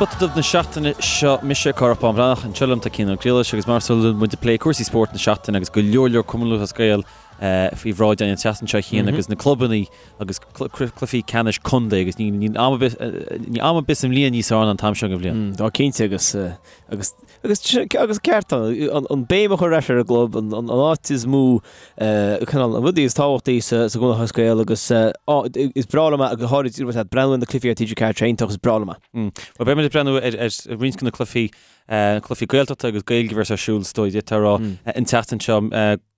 Spota Dubh na seachtaine seo, mise Cárthach Bán Breathnach, anseo liom tá Cian Ó Griallais agus mar is eol muid ag plé cúrsaí spóirt na seachtaine agus go leor leor Cumann Lúthchleas Gael faoi bhráid againn an tseachtain seo a Chian agus na clubanna agus cluichí ceannais contae agus níl am ar bith níl am ar bith sa mbliain níos fearr ná an t-am seo den bhliain. Tá cinnte agus agus agus agus ceart an an béim a chur ar ais ar an gclub, an an áit is mó cineál an rudaí is tábhachtaí sa sa gCumann Lúthchleas Gael agus is breá liom é go háirid ag breathnú ar na cluichí ar TG4 tá sé iontach is breá liom é. Bhuel beidh muid ag breathnú ar ar roinnt de na cluichí cluichí Gaeltachta agus Gaeilge a bheas ar siúl is dóigh d'fhéadfá a rá an tseachtain seo.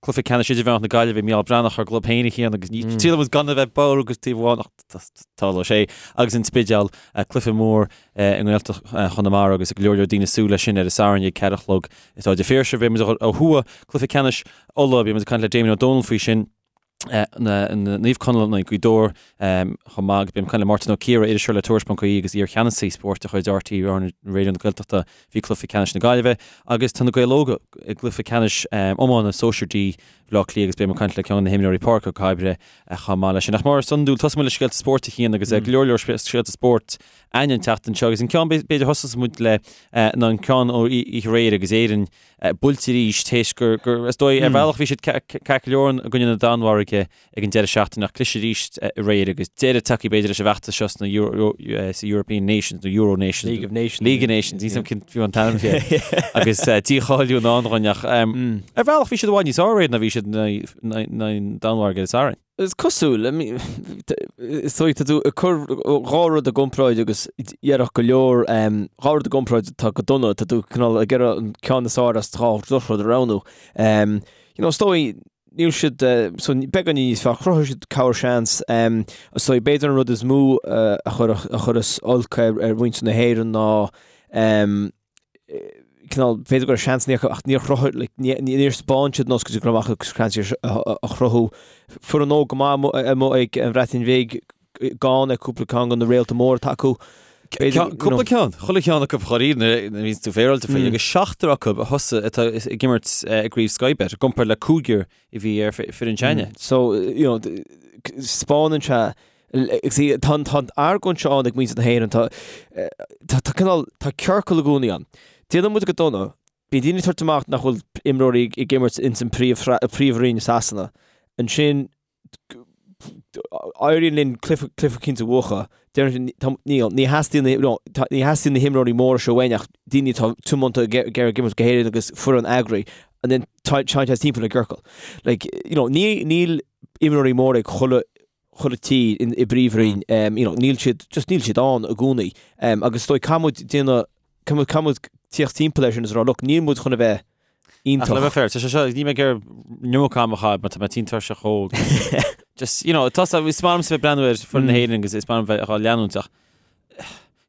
Cluiche ceannais idirmheánach na Gaillimhe, Mícheál Breathnach ár gclub féin a Chian agus ní triail muid gan a bheith bodhar agus taobh amháin ach tarlóidh sé agus an Spidéal, cluiche mór i nGaeltacht Chonamara agus go leor leor daoine ag súil leis sin ar an Satharn ag 4 a chlog i Staid an Phiarsaigh. Beidh muid ó thuaidh, cluiche ceannais Uladh, beidh muid ag caint le Damien Ó Dónaill faoi sin. Naomh Conaill in aghaidh Gaoth Dobhair chomh maith agus beidh mé ag caint le Máirtín Ó Ciardha, iriseoir le Tuairisc.ie agus iar-cheannasaí spóirt de chuid RTÉ Raidió na Gaeltachta faoi chluiche ceannais na Gaillimhe agus tá na Gaeil Óga i gcluiche ceannais iomána Sóisir D Bhaile Átha Cliath agus beidh mé ag caint le ceann de na himreoirí Pádraic Ó Cairbre chomh maith leis sin. Ach mar is iondúil, tosóidh muid le scéalta spóirt a Chian agus go leor leor scéalta spóirt againn an tseachtain seo agus an ceann b'fhéidir thosós muid le ná an ceann ó oíche aréir agus Éirinn buailte arís théis gur, gur, is dóigh, ar bhealach bhí siad ceart go leor i gcoinne na Danmhairge ag an deireadh seachtaine ach cliseadh arís aréir agus deireadh tagtha b'fhéidir leis an bhfeachtas seo sna Euro, sa European Nations nó Euro Nations. League of Nations. League of Nations, níl a fhios agam cén fiú an t-ainm fé. Agus dícháiliú i ndán dhúinn ach ar bhealach bhí siad i bhfad níos fearr aréir ná bhí siad in aghaidh na Danmhairge ar an Satharn. Is cosúil, is dóigh, tá tú ag cur dhá rud i gcomparáid agus déarfadh go leor, dhá rud i gcomparáid atá go dona, tá tú cineál ag iarraidh an ceann is fearr as dhá dhrochrud a roghnú. You know, is dóigh, níl siad, so beagáinín níos fearr, chruthaigh siad corr-seans, is dóigh, b'fhéidir an rud is mó a chuireas olc ar mhuintir na hÉireann ná, cineál, b'fhéidir go raibh seansanna acu ach níor chruthaigh, like, níor spáin siad nós go dtí go raibh acu seans a chruthú. Foireann óg go maith amuigh ag an Bhreatain Bhig, gann ar cúpla ceann de na réalta móra atá acu. Cúpla ceann, chuile cheann acu dháiríre nuair a bhíonns tú féaráilte faoi, agus seachtar acu a thosaigh atá ag imirt i gcraobh Sky Bet, i gcomparáid le cúigear a bhí ar foireann s'againne. So, you know, spáineann sé See, tá an tá an argóint seo ann ag muintir na hÉireann, tá tá tá cineál, tá ciorcal i gcónaí ann. Déanann muid go dona, bíonn daoine ag tabhairt amach nach bhfuil imreoirí ag imirt ins an príomh príomhroinn i Sasana. Ansin éiríonn linn cluiche cluiche eicínt a bhuachan. Deireann siad, tá níl, ní theastaíonn na no, tá ní theastaíonn na himreoirí móra seo uainn ach daoine atá tiomanta ag ag iarraidh imirt go hÉirinn agus foireann eagraí. And then tá téann sé timpeall i gciorcal. Like, you know, ní níl imreoirí móra ag chuile chuile tír i bpríomhroinn, you know, níl siad, just níl siad ann i gcónaí. Agus is dóigh, caithfidh muid déanamh, caithfidh muid, caithfidh muid tíocht timpeall air sin is a rá, look, níl muid chun a bheith iontach. Ach le bheith fair, tá sé seo, níl mé ag iarraidh an iomarca ama a chaitheamh mar tá mé tinn tuirseach óg. Just, you know, tá, is maith liomsa bheith ag breathnú ar foireann na hÉireann agus is maith liom bheith á leanúint ach,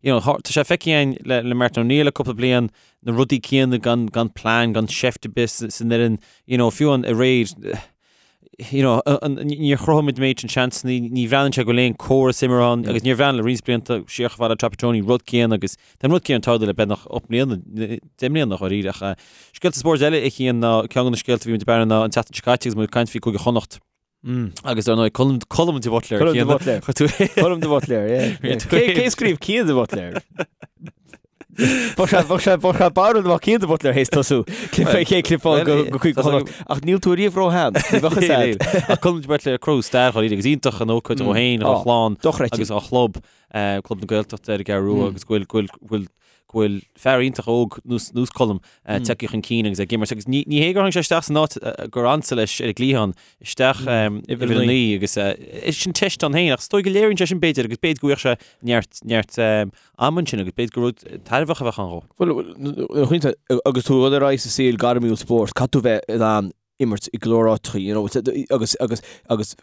you know, tá sé feicthe againn le, le Martin O'Neill le cúpla bliain, na rudaí céanna gan, gan plean, gan seift ar bith san fhoireann, you know, fiú an aréir, you know, níor chruthaigh muid an méid sin seansanna, ní bhreathnaíonn sé go bhfuil aon córas imeartha ann agus níor bhreathnaigh le roinnt blianta siar chomh fada le Trapattoni, rud céanna agus tá an rud céanna ag tarlú le beagnach 8 mbliana, 10 mbliana dháiríre ach scéalta spóirt eile a Chian ná ceann de na scéalta a bhí muid ag breathnú ná an tseachtain seo caite agus muid ag caint faoi Cúige Chonnacht. Agus ar ndóigh Colm Colm de Buitléar. Colm de Buitléar. Colm de Buitléar, yeah. Cé cé scríobh Cian de Buitléar? Bheadh sé bheadh sé bheadh sé barúil dá mbeadh Cian de Buitléar théis tosú. Clip cé clipáil go go Cúige Chonnacht. Ach níl tú riamh ró-shean. Ní bheadh fhios a'd. Ach Colm de Buitléar ag cruthú stair dháiríre agus iontach an ócáid dhó féin, dhá chlann Dochreidte. agus dá chlub, Club na Gaeltachta ar an gCeathrú Rua agus go bhfuil go bhfuil go bhfuil go bhfuil fear iontach óg nós nós Colm tagtha chun cinn agus ag imirt agus ní ní hé gur tháinig sé isteach san áit gur ansa leis ar an gcliathán isteach uimhir a 9 agus sin teist ann féin ach is dóigh go léiríonn sé sin b'fhéidir agus b'fhéidir go bhfuigheadh sé neart neart ama ansin agus b'fhéidir gur rud tairbheach a bheadh ann dhó. Bhuel, agus tú ag dul ar aghaidh sa saol gairmiúil spóirt, caithfidh tú bheith in ann imirt i go leor áiteacha, you know, agus, agus, agus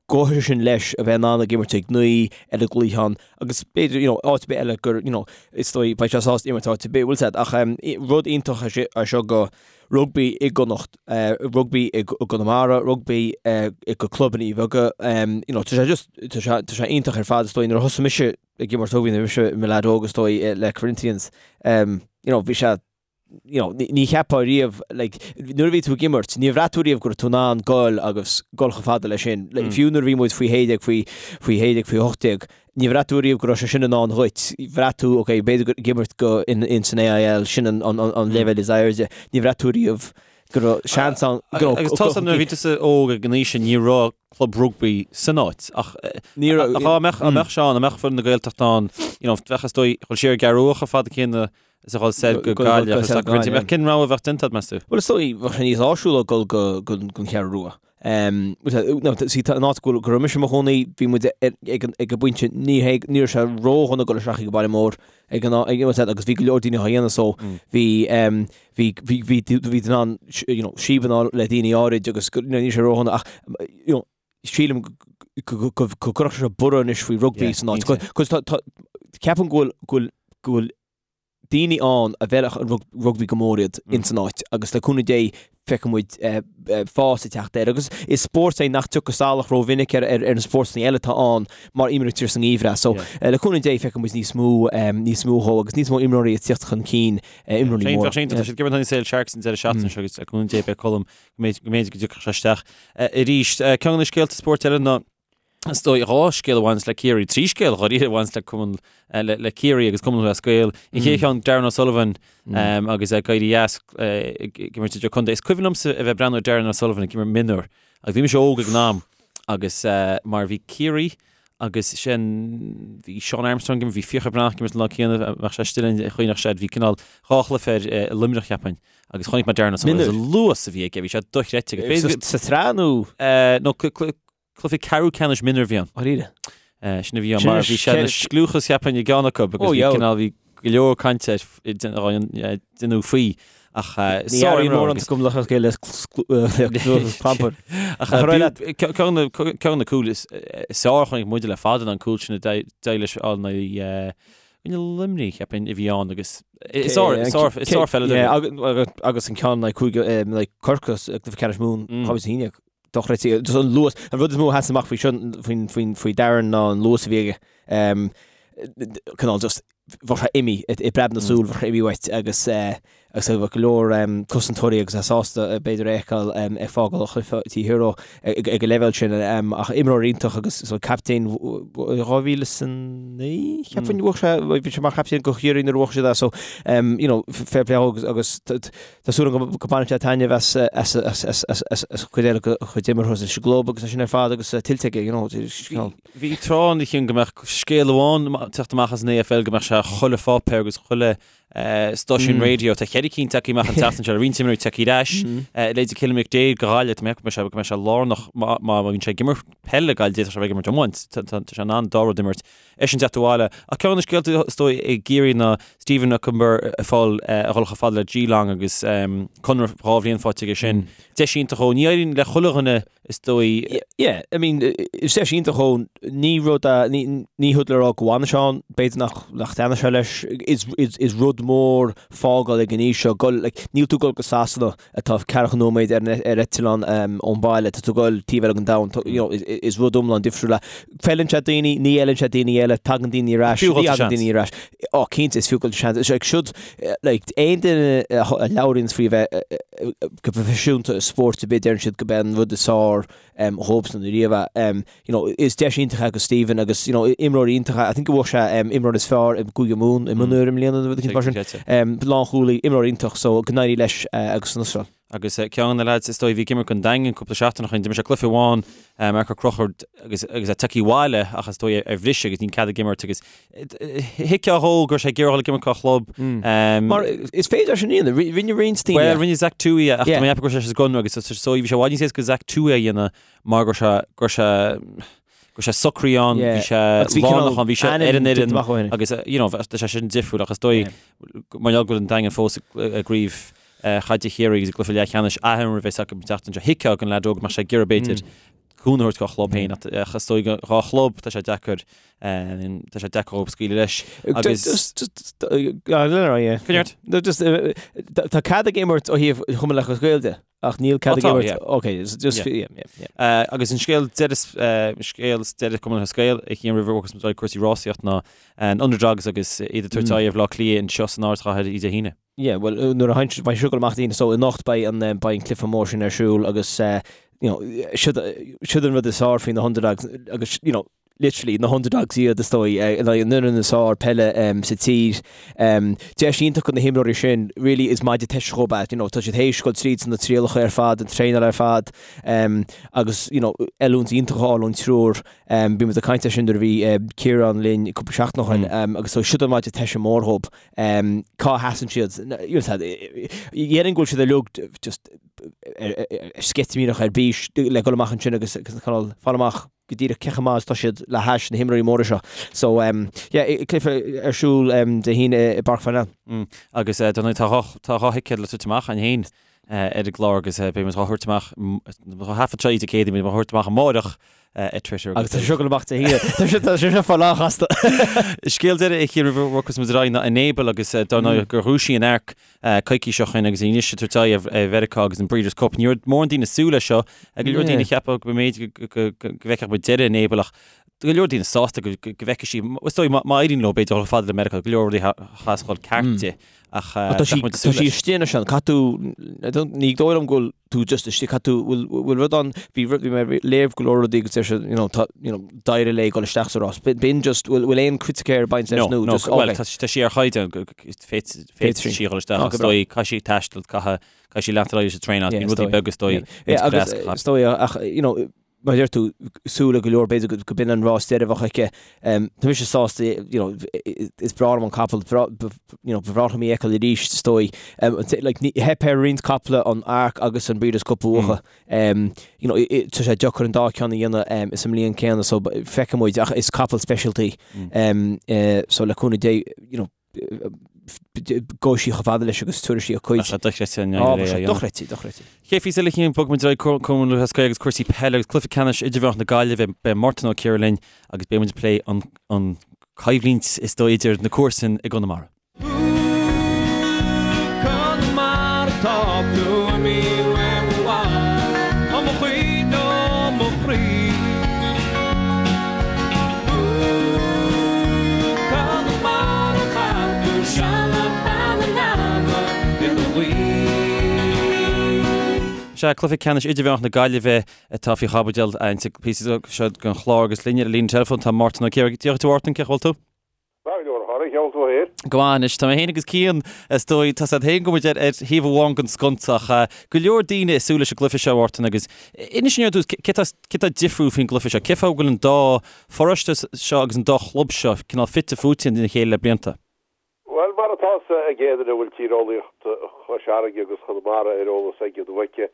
go háirithe sin leis a bheith in ann ag imirt ag 9 ar an gcliathán agus b'fhéidir, you know, áit ar bith eile gur, you know, is dóigh beidh sé sásta imirt áit ar bith, bhfuil a fhios a'd, ach um, rud iontach é seo, é seo go rugbaí i gConnacht, uh, rugbaí i gConamara, rugbaí uh, i go clubanna beaga, um, you know, tá sé just, tá sé, tá sé iontach ar fad is dóigh nuair a thosaigh mise ag imirt rugbaí nuair a bhí mise i mo leaid óg is dóigh le Corinthians, um, you know, bhí sé. you know, ní cheapfá riamh, like, nuair a bhí tú ag imirt, níor bhraith tú riamh go raibh tú in ann goil agus goil chomh fada leis sin. Like, fiú nuair a bhí muid faoi 16, faoi, faoi 16, faoi 18, níor bhraith tú riamh go raibh sé sin i ndán dhuit. Bhraith tú, ok, b'fhéidir ag imirt go in, in san AIL, sin an, an, an, an leibhéal is airde. Níor bhraith tú riamh go raibh seans ann, go raibh, Agus tá nuair a bhí tusa óg ag an aois sin, ní raibh club rugbaí san áit ach Ní raibh, ach dá mbeadh, dá mbeadh sé ann, dá mbeadh foireann na Gaeltachta ann, you know, bheadh is dóigh, dhul siar an Cheathrú Rua chomh fada céanna is a dhul soir go Gaillimh agus go Gaillimh. Ach cén rogha a bheadh déanta agat, meas tú? Bhuel, is dóigh, bheadh sé níos áisiúla dul go don Cheathrú Rua. See, tá an áit go raibh mise i mo chónaí, bhí muid ag an bpointe, ní hé, ní raibh sé ródhona dul isteach ag an baile mór ag an agus bhí go leor daoine á dhéanamh so bhí bhí bhí bhí bhí tú in ann you know, síob le daoine áirid agus ní raibh sé ródhona ach you know, sílim go gcuirfeadh sé borradh anois faoi rugbaí san áit. Cos tá ceapaim go bhfuil go bhfuil daoine ann a bhfeilfeadh an rugbaí go mór iad ins an áit agus le cúnamh Dé feicfidh muid fás ag teacht air agus is spórt é nach dtiocfadh salach rómhinic ar ar na spórtanna eile atá ann mar imrítear sa ngeimhreadh so le cúnamh Dé feicfidh muid níos mó níos mó dhó agus níos mó imreoirí ag tíocht chun cinn imreoirí móra. Tá siad ag imirt in aghaidh Sale Sharks an deireadh seachtaine seo agus le cúnamh Dé beidh Colm go mb'fhéidir go dtiocfadh sé isteach arís. Ceann de na scéalta spóirt eile ná is dóigh dhá scéal a bhaineas le Ciarraí, trí scéal dháiríre a bhaineas le cumann le Ciarraí agus Cumann Lúthchleas Gael. An chéad cheann Darran O'Sullivan agus é ag éirí as ag imirt idir-chontae. Is cuimhin liomsa a bheith ag breathnú ar Darran O'Sullivan ag imirt mionúr agus bhí mise óg ag an am agus mar bhí Ciarraí agus sin bhí Seán Armstrong ag imirt, bhí Fiachra Breathnach ag imirt an lá céanna, bheadh sé istigh linn chuimhneach sé, bhí cineál dhá chluiche ar i Luimneach cheapfainn. Agus chonaic mé Darran O'Sullivan agus an luas a bhí aige, bhí sé dochreidte. Sa tsraith nó? No, cluiche ceathrú ceannais mionúr a bhí ann. Dáiríre. Sin a bhí ann, mar bhí sé ina scliúchas cheapfainn i gceann acu agus bhí cineál, bhí go leor cainte ar déanamh faoi. Ach Ní airíonn mórán agam le chéile le clampar. Ach ceann de na cúil is fearr a chonaic muide le fada ná an cúl sin a d'éirigh leis a fháil in aghaidh Coinne Luimnigh, cheapfainn, a bhí ann agus is sárpheileadóir é. Agus an ceann in aghaidh Corcaigh i gcluiche ceannais Mumhan, 2011, dochreidte. Just an luas, an rud is mó a sheas amach faoi seo, faoi Darran ná an luas a bhí aige. Cineál just, bheadh sé imithe i bpreab na súl, bheadh sé imithe uait agus agus bheadh go leor cosantóirí agus é sásta b'fhéidir é a fheiceáil ag fágáil an chluiche taobh thiar dó ag an leibhéal sin ach imreoir iontach agus so captaen 2009 cheapfainn bhuaigh sé bhí sé mar chaptaen go Chiarraí nuair a bhuaigh siad é so you know fair play agus agus tá súil agam go mbainfidh sé taitneamh as as as as as as as cuid eile dá chuid imeartha leis an gclub agus é sin ar fad agus tuillte aige you know Bhí tráth ann a Chian go mbeadh scéal amháin teacht amach as an AFL go mbeadh sé chuile pháipéar agus chuile Stáisiún raidió, tá cheithre cinn tagtha amach an tseachtain seo, roinnt imreoirí tagtha ar ais. Leithéidí Cillian McDaid go Gaillimh, tá mé ag ceapadh go mbeidh sé lárnach má bhíonn sé ag imirt peile le Gaillimh, d'fhéadfadh sé a bheith ag imirt iomáint, tá sé in ann dá rud imirt. Eisean teacht abhaile. Ach ceann de na scéalta is dóigh i gCiarraí ná Stephen Okunbor ag fáil a dhul chomh fada le Geelong agus conradh dhá bhliain faighte aige sin. Deis iontach dhó. Ní éiríonn le chuile dhuine is dóigh. Yeah, I mean, is deis iontach dhó, ní rud a, ní, ní rud le rá go bhfanfaidh sé ann, b'fhéidir nach, nach dtaitneoidh sé leis, is, is, is rud mór fágáil ag an aois seo, gul, like, níl tú ag gul go Sasana atá ceathracha nóiméad ar, ar eitleán um, ón baile, tá tú ag gul taobh eile den domhan, tá, you know, is, is rud iomlán difriúil é. Feileann sé daoine, ní fheileann sé daoine eile, tagann daoine ar ais, Fiú ní thagann daoine ar ais. Ó, cinnte, is fiú dul seans. Is like, siúd, like, aon duine a labhraíonns faoi bheith go proifisiúnta i spórt ar bith, deireann siad go b'é an rud is fearr dhóibhsean riamh é. You know, is deis iontach é do Stephen agus, you know, imreoir iontach é. I think go bhfuair sé imreoir is fearr i gCúige Mumhan i mionúir i mbliana nó rud eicínt mar sin. Lánchúlaí, imreoir iontach, so go n-éirí leis agus san Astráil. Agus ceann de na leaids is dóigh a bhí ag imirt don Daingean cúpla seachtain ó shin, d'imir sé cluiche amháin, Marc Ó Conchúir agus agus é tagtha abhaile ach is dóigh ar bhriseadh agus níl cead ag imirt agus thuigfeá dhó go raibh sé ag iarraidh dul ag imirt dá chlub. Mar is féidir sin a dhéanamh, rinne roinnt daoine. Bhuel, rinne Zach Tuohy ach tá mé ag ceapadh go raibh sé sa gconradh agus is dóigh bhí sé i bhfad níos éasca Zach Tuohy a dhéanamh mar go raibh sé go raibh sé go raibh sé socraithe ann, bhí sé lárnach ann, bhí sé ar an fhoireann agus you know tá sé sin difriúil ach is dóigh mar gheall go bhfuil an Daingean fós i gcraobh chaide Chiarraí agus i gcluiche leathcheannais athimeartha a bheas acu an tseachtain seo. Thuigfeá don leaid óg go mbeadh sé ag iarraidh b'fhéidir cúnamh a thabhairt dá chlub féin ach is dóigh dhá chlub tá sé deacair tá sé deacair dhóibh scaoileadh leis agus Tá cead ag imirt ó thaobh Chumann Lúthchleas Gael de ach níl cead ag imirt ok just yeah yeah agus an scéal deireadh scéal deireadh Cumann Lúthchleas Gael a Chian roimh a bhogfas muid cúrsaí rásaíocht ná an Underdogs agus iad ag tabhairt aghaidh ar Bhaile Átha Cliath anseo san ardchathair Dé hAoine. Yeah, well, nuair a théann, beidh seo ag dul amach Dé hAoine, so anocht beidh an, beidh an cluiche mór sin ar siúl agus, you know, siod, siod an rud is fearr faoi na underdogs agus, you know, literally na underdogs iad is dóigh, in aghaidh an fhoireann is fearr peile sa tír. Deis iontach do na himreoirí sin, really is maide teiste dhóibh é, you know, tá siad théis dul tríd na trialacha ar fad, an traenáil ar fad, agus, you know, oiliúint iontach a fháil ón triúr. Bhí muid ag caint air sin nuair a bhí Ciarán linn cúpla seachtain ó shin, agus so siod an maide teiste mór dhóibh. Cá sheasann siad? Dhéarfainn go bhfuil siad uilig just sceitimíneach ar bís le dul amach ansin agus cineál fáil amach go díreach cé chomh maith is atá siad le hais na himreoirí móra seo. So yeah, cluiche ar siúl Dé hAoine i bPáirc Pharnell. Agus dar ndóigh tá dhá thicéad le tabhairt amach againn féin ar an gclár agus beidh muid dhá thabhairt amach, dhá thaifead seo Dé Céadaoin, beidh muid dhá thabhairt amach amáireach ar Twitter. Agus tá sé seo ag dul amach Dé hAoine. Tá sé tá sé seo fá lánchasta. Scéal deiridh a Chiain roimh a bhogfas muid ar aghaidh ná Enable agus dar ndóigh gur dhúisigh an Ark coicís ó shin agus anois ag tabhairt aghaidh ar Mheiriceá agus an Breeders' Cup. Ní raibh mórán daoine ag súil leis seo. Go leor daoine ag ceapadh go mb'fhéidir go bhfeicfeadh muid deireadh Enable ach go leor daoine sásta go bhfeicfidh sí, is dóigh má éiríonn leo b'fhéidir dul chomh fada le Meiriceá, go leor rudaí a chas dhul ceart di ach tá sí tá sí istigh anois ann, caithfidh tú, ní dóigh liom go bhfuil tú just istigh, caithfidh tú, bhfuil bhfuil rud ann, bhí rud, bhí mé ag léamh go leor rudaí agus deir siad, you know, tá, you know, d'éirigh léi dul isteach sa rás. B'in just, bhfuil bhfuil aon criticéir ag baint leis nó just, okay. Well, tá sí ar chaighdeán, féadfaidh sí dhul isteach, is dóigh, caithfidh sí taisteal, caithfidh sí leanacht ar aghaidh leis an traenáil, bíonn rudaí beaga is dóigh. Yeah, agus is dóigh, ach, you know, mar a deir tú, súil ag go leor, b'fhéidir go b'in an rás deiridh a bheadh aici. Tá mise sásta, you know, is breá liom an capall, you know, ba bhreá liom í a fheiceáil arís, is dóigh. Like, theip ar roinnt caiple an Arc agus an Breeders' Cup a bhuachan. You know, tá sé deacair an dá ceann a dhéanamh sa mbliain céanna, so feicfidh muid, ach is capall speisialta í. So le cúnamh Dé, you know, gabhfaidh sí chomh fada leis agus tabharfaidh sí a cuid. Tá sé dochreidte an Á, tá sé dochreidte, dochreidte. Chéad phíosa eile a Chiain, bogfaidh muid ar aghaidh Cumann Lúthchleas Gael agus cúrsaí peile agus cluiche ceannais idirmheánach na Gaillimhe. Beidh Mártan Ó Ciardha linn agus beidh muid ag plé an an coimhlint is dóigh idir na comharsain i gConamara. Conamara tá tú imithe uaim i bhfad, ó mo chuid ó mo chroí. Sea, cluiche ceannais idirmheánach na Gaillimhe atá faoi chaibidil an píosa seo den chlár agus linn ar an líne teileafóin tá Mártan Ó Ciardha. Dia dhuit a Mhártain, cén chaoi a bhfuil tú? Maith go leor, a chara, cén chaoi a bhfuil tú féin? Go maith anois, tá mé féin agus Cian, is dóigh, tá 's agat féin go bhfuil muid ar thaobh amháin den sconsa ach go leor daoine ag súil leis an gcluiche seo, a Mhártain, agus inis dúinn ar dtús, cé tá difriúil faoin gcluiche seo? Cén fáth go bhfuil an dá pharóiste seo agus an dá chlub seo cineál fite fuaite ina chéile le blianta? Bhuel, mar atá 's ag aon duine a bhfuil tíreolaíocht Chois Fharraige agus Chonamara ar eolas aige nó aici,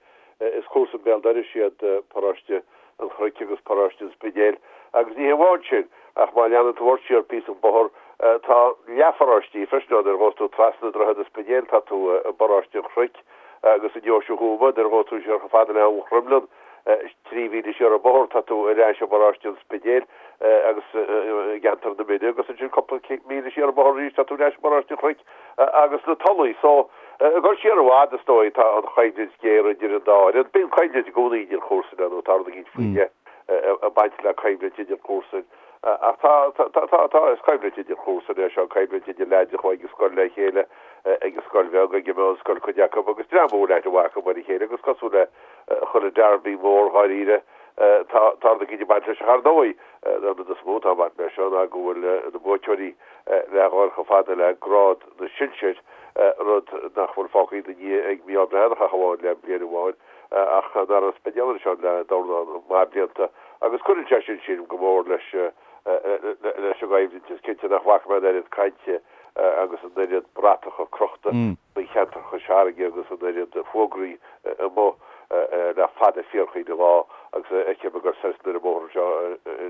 is comharsain béal dorais iad paróiste an Chnoic agus paróiste an Spidéil. Agus ní hé amháin sin, ach má leanann tú ort siar píosa an bóthar, tá leathpharóistí freisin ann. Nuair a ghabhas tú trasna Droichead an Spidéil, tá tú i bparóiste an Chnoic agus i nDeoise Thuama. Nuair a ghabhas tú siar chomh fada le Abhainn Chroimghleann, 3 mhíle siar an bóthar, tá tú ar ais i bparóiste an Spidéil agus i gceantar na Mine agus ansin cúpla míle siar an bóthar arís tá tú ar ais i bparóiste an Chnoic agus na Tulaí. So, ag dul siar i bhfad is dóigh tá an choimhlint géar idir an dá fhoireann. Bíonn coimhlint i gcónaí idir chomharsain nó tá rud eicínt faoi leith ag baint le coimhlint idir chomharsain. Ach tá, tá, tá, tá, is coimhlint idir chomharsain é seo, coimhlint idir leaids a chuaigh ag scoil le chéile, ag an scoil bheag, ag an meánscoil cuid acu agus dream a bhfuil aithne mhaith acu ar a chéile agus cosúil le chuile derby mór dháiríre, tá tá rud eicínt ag baint leis ach ar ndóigh, an rud is mó atá ag baint leis seo ná go bhfuil na buaiteoirí le dhul chomh fada le grád na sinsear, rud nach bhfuil fágtha ina ndiaidh ag Mícheál Breathnach ach amháin le bliain amháin, ach nach raibh an Spidéal anseo le dornán maith blianta agus cuireann sé sin sílim go mór leis leis an gcoimhlint. Is cinnte nach bhfaca mé an oiread cainte agus an oiread bratacha crochta faoi cheantar Chois Fharraige agus an oiread fógraí amuigh le fada fíorchaoin an lá agus a fheicim ag dul soir is anoir an bóthar anseo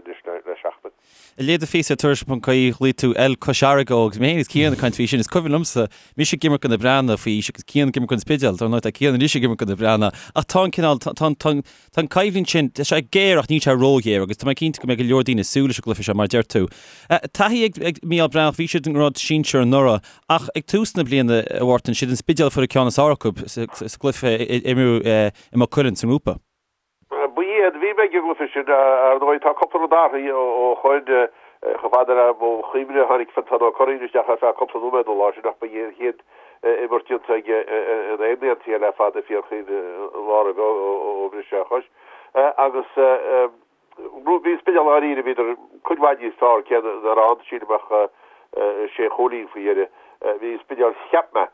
anois le seachtain. Ag léamh do phíosa ar Tuairisc.ie ghlaoigh tú El Cois Fharraige agus mé féin agus Cian ag caint faoi sin. Is cuimhin liomsa mise ag imirt do na Breathnaigh faoi aois agus Cian ag imirt don Spidéal. Dar ndóigh tá Cian anois ag imirt do na Breathnaigh ach tá an cineál, tá an, tá an, tá an coimhlint sin, tá sé géar ach níl sé róghéar agus tá mé cinnte go mbeidh go leor daoine ag súil leis an gcluiche seo mar a deir tú. Taithí ag Mícheál Breathnach, bhí siad i ngrád sinsir anuraidh ach ag tús na bliana, a Mhártain, siad an Spidéal a fuair an ceann is fearr acu sa gcluiche a imríodh i Maigh Cuilinn sa ngrúpa. Ba iad, bhí mé ag an gcluiche sin, ar ndóigh tá cúpla rud athraithe ó shoin, chomh fada le mo chuimhne tháinig Fintán Ó Curraoin isteach ar feadh cúpla nóiméad an lá sin ach ba é an chéad. imirt déanta aige in aghaidh na NCL le fada, fíorchaoin an lá roimhe ó bhris sé a chois. Agus bhí an Spidéal dháiríre, bhíodar cuid mhaith níos fearr, cé nach raibh ann, sílim, ach sé chúilín faoi dheireadh. Bhí an Spidéal, cheap mé,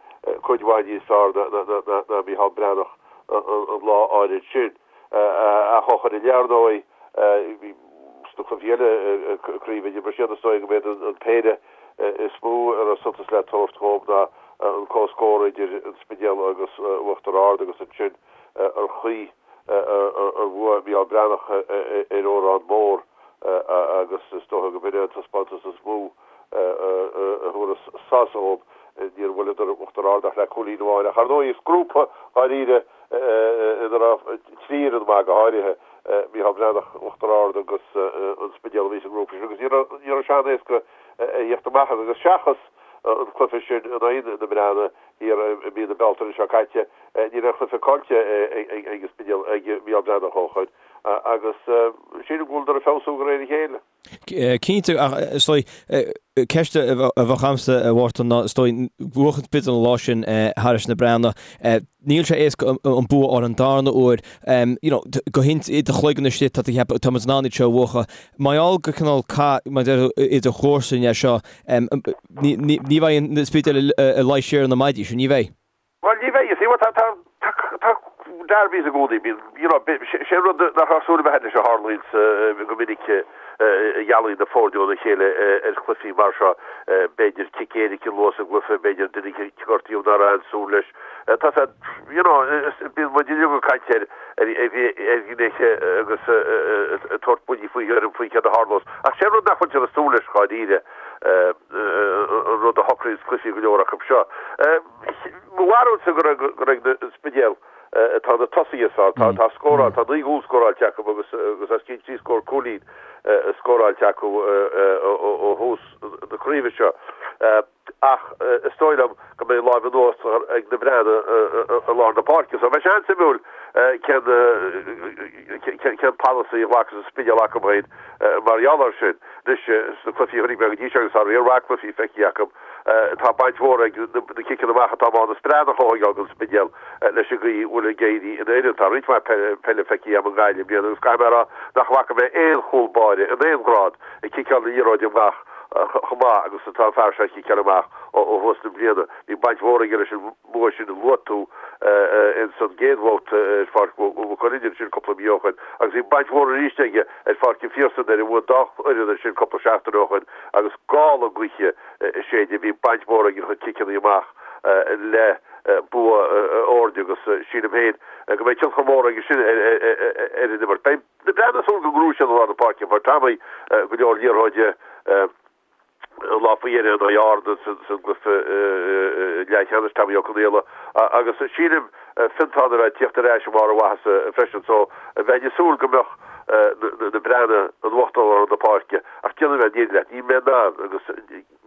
cuid mhaith níos fearr ná Micheál Breathnach an lá áirid sin. Ach ó shoin i leith, ar ndóigh, sna cluichí eile craoibhe, d'imir siad, is dóigh go mb'iad an péire is mó a raibh suntas le tabhairt dhóibh ná an comhscór idir an Spidéal agus Uachtar Ard agus ansin ar chaoi ar bhuaigh Micheál Breathnach ar Órán Mór agus is dócha go b'in é an taispeántas is mó a thabharfas sásamh dhóibh. Níor bhuaileadar Uachtar Ard ach le cúilín amháin ach ar ndóigh is grúpa dháiríre ina raibh 3 fhoireann maith, go háirithe Micheál Breathnach, Uachtar Ard agus an Spidéal a bhí sa ngrúpa sin agus ní raibh sé an-éasca a thíocht amach as agus seachas an cluiche sin in aghaidh na Breathnaigh thiar i mí na Bealtaine seo caite, ní raibh aon chluiche caillte ag an Spidéal, ag Micheál Breathnach ó shoin agus sílim go bhfuileadar ag feabhsú de réir a chéile. Cinnte, ach is dóigh, ceist a bheadh agamsa, a Mhártain, ná is dóigh, bhuaigh an Spidéal an lá sin thairis na Breathnaigh. Níl sé éasca an bua a fháil an darna huair. You know, go i do chloigeann istigh, tá tú ag ceapadh, tá muid in ann iad seo a bhuachan. Mar gheall gur cineál cath, mar a deir tú, idir chomharsain é seo, ní bheidh an Spidéal ag luí siar ar na maidí sin, ní bheidh. Bhuel, ní bheidh, you see, tá, tá, tá derbies i gcónaí, bíonn, you know, sé rud nach raibh súil agam leis a tharlaíonn go minic a dhealaíonn na foirne óna chéile ar chluichí mar seo, b'fhéidir cic éirice luath sa gcluiche, b'fhéidir duine a gortaíodh nach raibh aon súil leis. Tá sé, you know, bíonn muid uilig ag caint ar, ar, ar ghnéithe agus ag tabhairt buillí faoi thuairim faoi céard a tharlós. Ach sé rud nach bhfuiltear ag súil leis dháiríre, an rud a shocraíonn cluichí go leor acu seo. Mo bharúilsa gur ag an Spidéal atá na tosaithe is fearr. Tá scóráil, tá 9 gcúl scóráilte acu agus os cionn trí scór cúilín scóráilte acu ó thús na craoibhe seo. Ach is dóigh liom go mbeidh lámh in uachtar ag na Breathnaigh i lár na páirce. So beidh sé an-suimiúil cén cén polasaí a ghlacfas an Spidéal acu féin mar gheall air sin. Anois, sna cluichí a chonaic mé go dtí seo agus tá riar mhaith cluichí feicthe acu, Tá baint mhór ag na ciceanna amach atá Mánas Breathnach a thógáil don Spidéal leis an gcaoi a bhfuil ag éirí ina fhoireann. Tá roinnt mhaith peile feicthe agam i nGaillimh i mbliana agus caithfidh mé a rá nach bhfaca mé aon chúl báire in aon ghrád ag ciceáil na liathróide amach chomh maith agus atá an fear seo ag ciceáil amach ó thús na bliana. Bhí baint mhór aige leis an mbua sin a luaigh tú ins an gcéad bhabhta ar Pháirc Mhaigh Cuilinn ansin cúpla mí ó shoin agus bhí baint mhór arís aige ar Pháirc an Phiarsaigh nuair a bhuaigh an dá fhoireann ansin cúpla seachtain ó shoin agus gála gaoithe ag séideadh. Bhí baint mhór ag a chuid ciceanna amach le bua a fhoirne agus sílim féin go mbeidh tionchar mór aige sin ar an imirt. Beidh na Breathnaigh ag súil go ngnóthóidh siad i lár na páirce. Fuair Tommy go leor liathróide an lá faoi dheireadh in aghaidh Árann sa gcluiche leathcheannais, Tommy Ó Conaola, agus sílim Fiontán a bheith ag tíocht ar ais i mbarr a mhaitheasa freisin so bheinn ag súil go mbeadh na Breathnaigh in uachtar i lár na páirce ach déanfaidh mé an fhírinne leat, níl mé in ann agus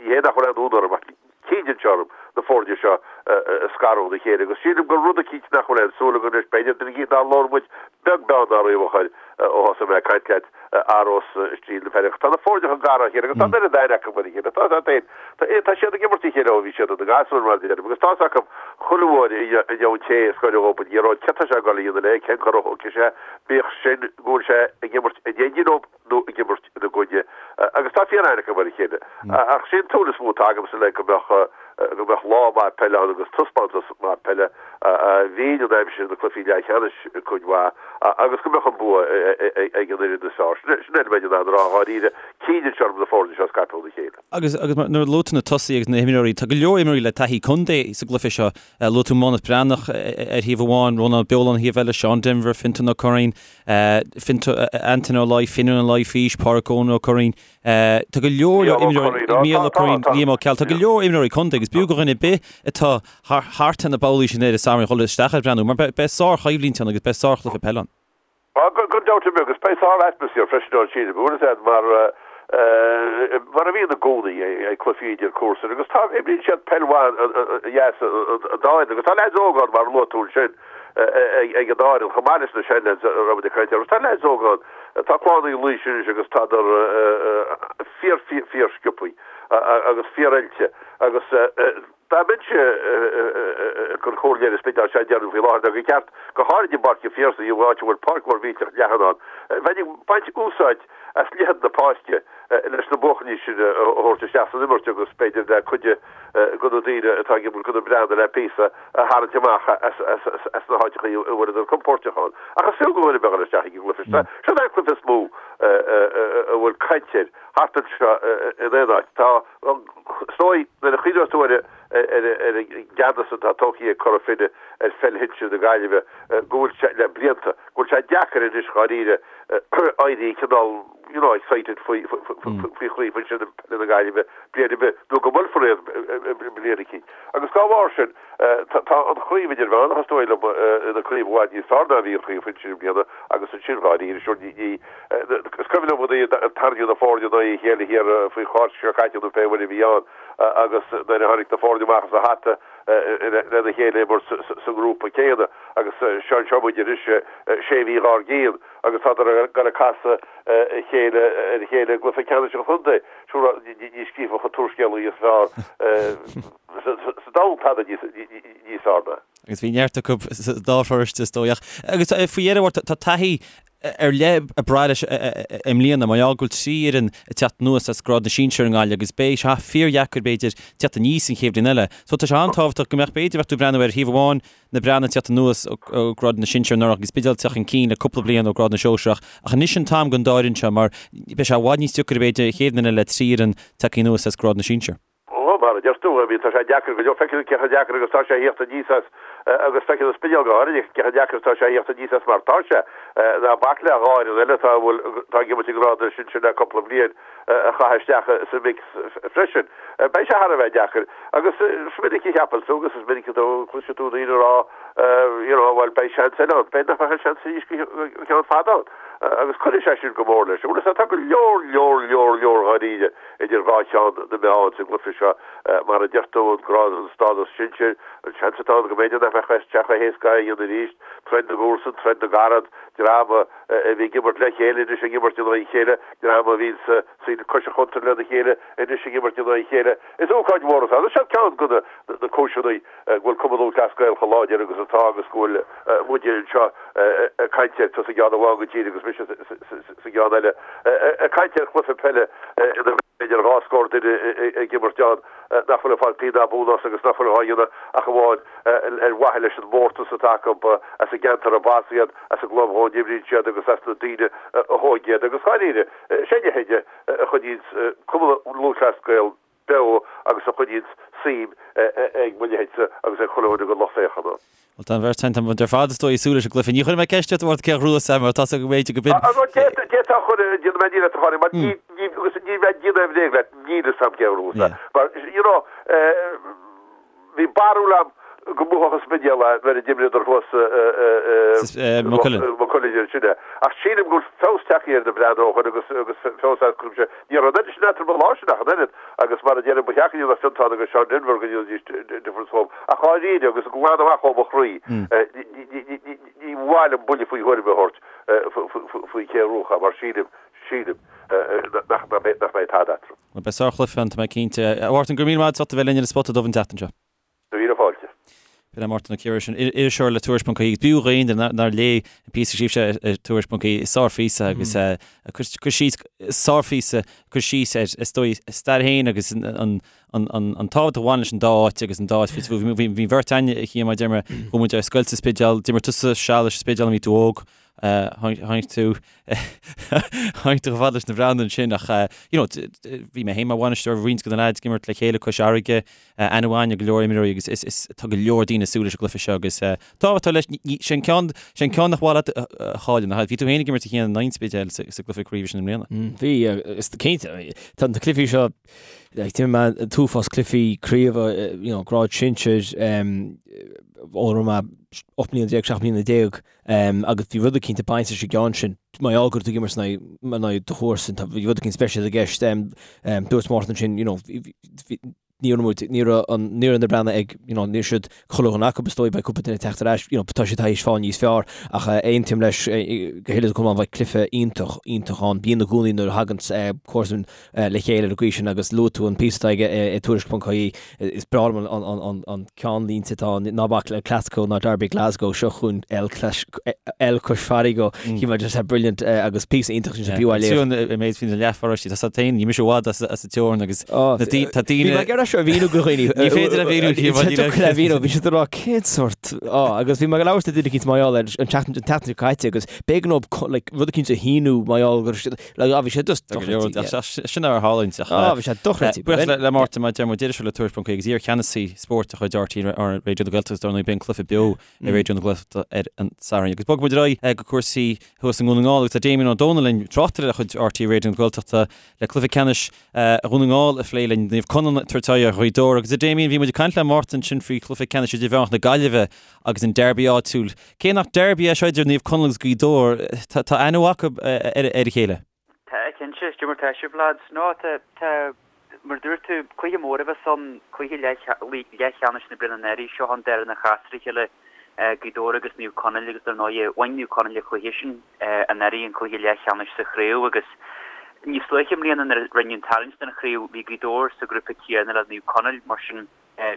ní hé nach bhfuil aon fhonn orm ach cinneann sé orm na foirne seo a scaradh óna chéile agus sílim gur rud eicínt nach bhfuil aon súil againn leis, b'fhéidir duine eicínt nár labhair muid beag beann dá raibh a chur ó thosaigh mé ag caint leat athródh stíl na peile. Tá na foirne chomh gar dá chéile agus tá an oiread aithne acu ar a chéile. Tá a fhios agat, tá siad ag imirt a chéile ó bhí siad ina ngasúir mar a deirim agus tá a fhios acu chuile uair a gheobhann an té a scoireann dhóibh an liathróid céard tá sé ag dul a dhéanamh léi, cén cor a thógfaidh sé, bíodh sin go bhfuil sé ag imirt in éindí leo nó ag imirt ina gcoinne agus tá fíor-aithne acu ar a chéile. Ach sé an tsúil is mó atá agamsa le go mbeadh go mbeadh lá maith peile ann agus taispeántas maith peile a bhíonn an aimsir na cluichí leathcheannais cuid mhaith agus go mbeadh an bua ag an fhoireann is fearr. Sin é a bheinn in ann a rá dháiríre, cinneann sé orm na foirne seo a scaipeadh óna chéile. Agus agus nuair a luaigh tú na tosaithe agus na himreoirí, tá go leor imreoirí le taithí contae sa gcluiche seo. Luaigh tú Mánas Breathnach ar thaobh amháin, Rónán Beoláin ar thaobh eile, Seán Denvir, Fionntán Ó Curraoin, Antaine Ó Laoi, Finian Ó Laoi, Pádraic Eoin Ó Curraoin. Tá go leor imreoirí, Mícheál Ó Curraoin, Liam Ó Ceallaigh, tá go leor imreoirí contae agus b'fhiú do dhuine ar bith atá thart ar na babhlaí sin ar an Satharn dhul isteach ag breathnú mar beidh sár-choimhlint ann agus beidh sárchluiche peile ann. Gan dabht ar bith agus beidh sár-atmaisféar freisin ann sílim, bhfuil a fhios agat mar mar a bhíonn i gcónaí ag cluichí idir comharsain agus tá, imríonn siad peil mhaith dheas an dá fhoireann agus tá leaids óga ann mar a luaigh tú ansin. ag an dá fhoireann, chomh maith leis na seanleaids a raibh muid ag caint orthu. Tá leaids óga ann, tá clann Uí Laois anois agus tádar fíor, fíor, fíor sciobthaí agus fíor oilte agus. Dá mbeinnse ag cur comhairle ar an Spidéal seo a déarfainn faoi láthair ná gur cheart, go háirid i bPáirc an Phiarsaigh, an áit a bhfuil páirc mhór mhillteach leathan ann, bheinn ag baint úsáid as leithead na páirce leis na buachaillí sin a thabhairt isteach san imirt agus b'fhéidir le cuid de na daoine atá ag imirt do na Breathnaigh le píosa a tharraingt amach as na háiteachaí a bhfuileadar compóirteach ann. Ach is fiú go dhuine a bheith ag dul isteach ag an gcluiche seo. Seo é an cluiche is mó a bhfuil caint air thart anseo in aon áit. Tá Is dóigh, nuair a chuimhneos tú ar ar an gceannas atá tógtha ag Cora Finne ar pheil shinsir na Gaillimhe, go bhfuil sé, le blianta, go bhfuil sé deacair anois dháiríre éirí cineál, you know, excited faoi chraobh shinsir peile na Gaillimhe bliain ar bith, nó go mbuailfear iad bliain eicínt. Agus dá bharr sin, Tá an chraobh idirmheánach, is dóigh liom, ina craobh i bhfad níos fearr ná a bhí an chraobh shinsir i mbliana agus ansin dháiríre, sure, ní, is cuimhin liom nuair a tarraingíodh na foirne in aghaidh a chéile thiar faoi Cháisc seo caite nó pé uair a bhí ann agus nuair a tháinig na foirne amach as a hata lena chéile imirt sa ngrúpa céanna agus seo anseo muid anois sé mhí dhár gcionn agus tádar ag dul ag casadh a chéile ar a chéile i gcluiche ceannais an chontae. Sure, ní scríobhfadh an t-úrscéalaí is fearr. sa domhan tada níos fearr ná. Agus bhí neart acu sa dá pharóiste is dóigh. Ach agus faoi dheireadh tá taithí ar leith ag brath leis i mbliana mar gheall go bhfuil 3 fhoireann ag teacht anuas as grád na sinsear i nGaillimh agus beidh sé fíordheacair b'fhéidir teacht aníos an chéad bhliain eile. So tá sé an-tábhachtach go mbeadh b'fhéidir bheadh tú ag breathnú ar thaobh amháin na Breathnaigh ag teacht anuas ó ghrád na sinsear anuraidh agus Spidéal ag teacht chun cinn le cúpla bliain ó ghrád na sóisearach ach anois an t-am don dá fhoireann seo mar beidh sé i bhfad níos deacair b'fhéidir an chéad bhliain eile le 3 fhoireann tagtha anuas as grád na sinsear. Ó, mar a deir tú, I mean, tá sé deacair go leor, feiceann tú cé chomh deacair agus tá sé a thíocht aníos as, agus feiceann an Spidéal go háirithe cé chomh deacair is tá sé a thíocht aníos as mar tá sé. Ná bac le dhá fhoireann eile atá, a bhfuil, atá ag imirt i ngrád na sinsear le cúpla bliain a chaitheamh isteach sa mix freisin. Beidh sé thar a bheith deacair. Agus is minic a cheapann tú agus is minic a chloiseann tú daoine ag rá, you know, bhuel, beidh seans eile ann. B'fhéidir nach mbeadh an seans arís go ceann fada ann. Agus cuirfidh sé sin go mór leis. Bhuel, is tá go leor, leor, leor, leor dháiríre idir dhá cheann na meá sa gcluiche seo, mar a deir tú, an grád, an stádas sinsir, an seans atá ann go mb'fhéidir nach mbeadh sé chomh héasca é a dhéanamh arís, troid na gcomharsan, troid na gcarad, dream a bhí ag imirt le chéile anois ag imirt in aghaidh a chéile, dream a bhí sa saol cois an chuntair lena chéile anois ag imirt in aghaidh a chéile. Is ócáid mhór atá ann. Seo ceann de na cúiseanna go bhfuil Cumann Lúthchleas Gael chomh láidir agus atá agus go bhfuil muide anseo ag caint air, tusa i gceann amháin den tír agus mise sa gceann eile, ag caint ar chluiche peile ina bhfuil b'fhéidir dhá scór duine ag imirt ann nach bhfuil ag fáil pingin ná punt as agus nach bhfuil á dhéanamh ach amháin ar mhaithe leis an mórtas atá acu as an gceantar arb as iad, as an gclub dhá n-imríonn siad agus as na daoine a thóg iad. Agus dháiríre, sé a leithéid a choinníonns Cumann Lúthchleas Gael beo agus a choinníonns suim ag mo leithéidse agus ag chuile dhuine den lucht féachana. Bhuel, tá an bheirt againn, tá muid ar fad is dóigh ag súil leis an gcluiche. Ní chuirfidh mé ceist ort, a Mhártain, cé a ghnóthós é mar tá a fhios agam go mb'fhéidir go b'in. D'fhéadfá a chur, déanfaidh mé ní leat a chur, mar ní, ní, agus ní bheidh déanamh aon bhréag leat, níl fhios a'm cé a ghnóthós é. Mar, you know, Bhí barúil a'm go mbuafadh an Spidéal é nuair a d'imríodar thuas i Maigh Cuilinn ansin é. Ach sílim go bhfuil feabhas tagtha ar na Breathnaigh ó shoin agus agus feabhas as cuimse. Ní raibh an oiread sin eatarthu an lá sin ach an oiread agus mar a deirim ba sheachain iad Fiontán agus Seán Denvir go ndéanfaidís difference dhóibh. Ach dháiríre agus glan amach ó mo chroí ní mhaith liom buille faoi thuairim a thabhairt faoi cé a ghnóthódh é mar sílim sílim nach mbeidh tada eatarthu. Bhuel, beidh sárchluiche ann, tá mé cinnte. A Mhártain, go raibh míle maith agat as ucht a bheith linn ar an Spota Dubh an tseachtain seo. Míle fáilte. B'in é Mártan Ó Ciardha sin, iriseoir le Tuairisc.ie agus b'fhiú d'aon duine nár léigh an píosa a scríobh sé ar Tuairisc.ie, sárphíosa agus cur síos, sárphíosa, cur síos ar, is dóigh, a stair féin agus an tábhacht a bhain leis an dá áit agus an dá áit faoi Bhí an bheirt againne a Chian, mar a deir mé, chuaigh muid ar scoil sa Spidéal, d'imir tusa seal leis an Spidéal nuair a bhí tú óg, Tháinig tú tháinig tú chomh fada leis na Breathnaigh ansin ach you know bhí mé féin mar bhainisteoir roinnt de na leaids ag imirt le chéile cois fharraige, aithne mhaith ar go leor imreoirí agus is is tá go leor daoine ag súil leis an gcluiche seo agus tábhacht leis sé an ceann sé an ceann nach mhaith leat a chailleadh nach bhí tú féin ag imirt a Chian in aghaidh an Spidéil sa sa gcluiche craoibhe sin i mbliana. Bhí is cinnte tá na cluichí seo like d'imir mé an t-uafás cluichí craoibhe you know grád sinsir ó raibh mé 18 mbliana 17 mbliana Agus bhí rud eicínt ag baint leis an gceann sin, mar gheall go raibh tú ag imirt in aghaidh do chomharsan, bhí rud eicínt speisialta i gceist. Dúirt Mártan ansin, you know, bhí. Ní raibh muid, ní raibh an, ní raibh na Breathnaigh ag, you know, ní raibh siad chuile dhuine acu is dóigh, beidh cúpla duine ag teacht ar ais, you know, tá siad tar éis fáil níos fearr ach aontaím leis go huile is go hiomlán, bheidh cluiche iontach, iontach ann. Bíonn i gcónaí nuair a thagann comharsain le chéile ar an gcaoi sin agus luaigh tú an píosa atá aige i Tuairisc.ie, is breá liom an, an ceannlínte atá ann, ná bac le Clasco ná Derby Glasgow, seo chugainn El El Cois Farraige, shíl mé just brilliant agus píosa iontach sin b'fhiú é a léamh. Fiú an méid faoin leathpharóiste, tá siad féin, ní mise i bhfad as an teorainn agus tá daoine... Bhí mé ag iarraidh seo a mhíniú do dhaoine. Ní féidir a mhíniú cé mar le mhíniú, bhí siad ag rá cén sort agus bhí mé ag labhairt le duine eicínt mar gheall air an tseachtain an tseachtain seo caite agus b'éigean dóibh like rud eicínt a shíniú mar gheall go raibh siad like ah bhí sé just dochreidte. Sin ar tharlaíonn ach Ah bhí sé dochreidte. Buíochas le Mártan mar a deir muid iriseoir le Tuairisc.ie agus iar-cheannasaí spóirt de chuid RTÉ Raidió na Gaeltachta dar ndóigh beidh an cluiche beo ar Raidió na Gaeltachta ar an Satharn. Agus bogfaidh muid ar aghaidh go cúrsaí thuas i nDún na nGall agus tá Damien Ó Dónaill linn, tráchtaire de chuid RTÉ Raidió na Gaeltachta le cluiche ceannais Dhún na nGall a phlé linn, Naomh Conaill ag tabhairt aghaidh ar Ghaoth Dobhair. Agus a Damien, bhí muid ag caint le Mártan ansin faoi chluiche ceannais idirmheánach na Gaillimhe agus an derby áitiúil. Cé nach derby é seo idir Naomh Conaill agus Gaoth Dobhair, tá aithne mhaith acu ar a chéile. Tá, cinnte. Cad é mar tá sibh, lads. No, tá, tá, mar a dúirt tú, cluiche mór a bheas ann, cluiche leathcheannais na bliana anuraidh, seo an dara a chas ar a chéile, Gaoth Dobhair agus Naomh Conaill agus dar ndóighe, bhain Naomh Conaill an cluiche sin anuraidh, an cluiche leathcheannais sa chraobh agus níos luaithe i mbliana nuair a rinneadh an tarraingt don chraobh, bhí Gaoth Dobhair sa ghrúpa céanna le Naomh Conaill, mar sin.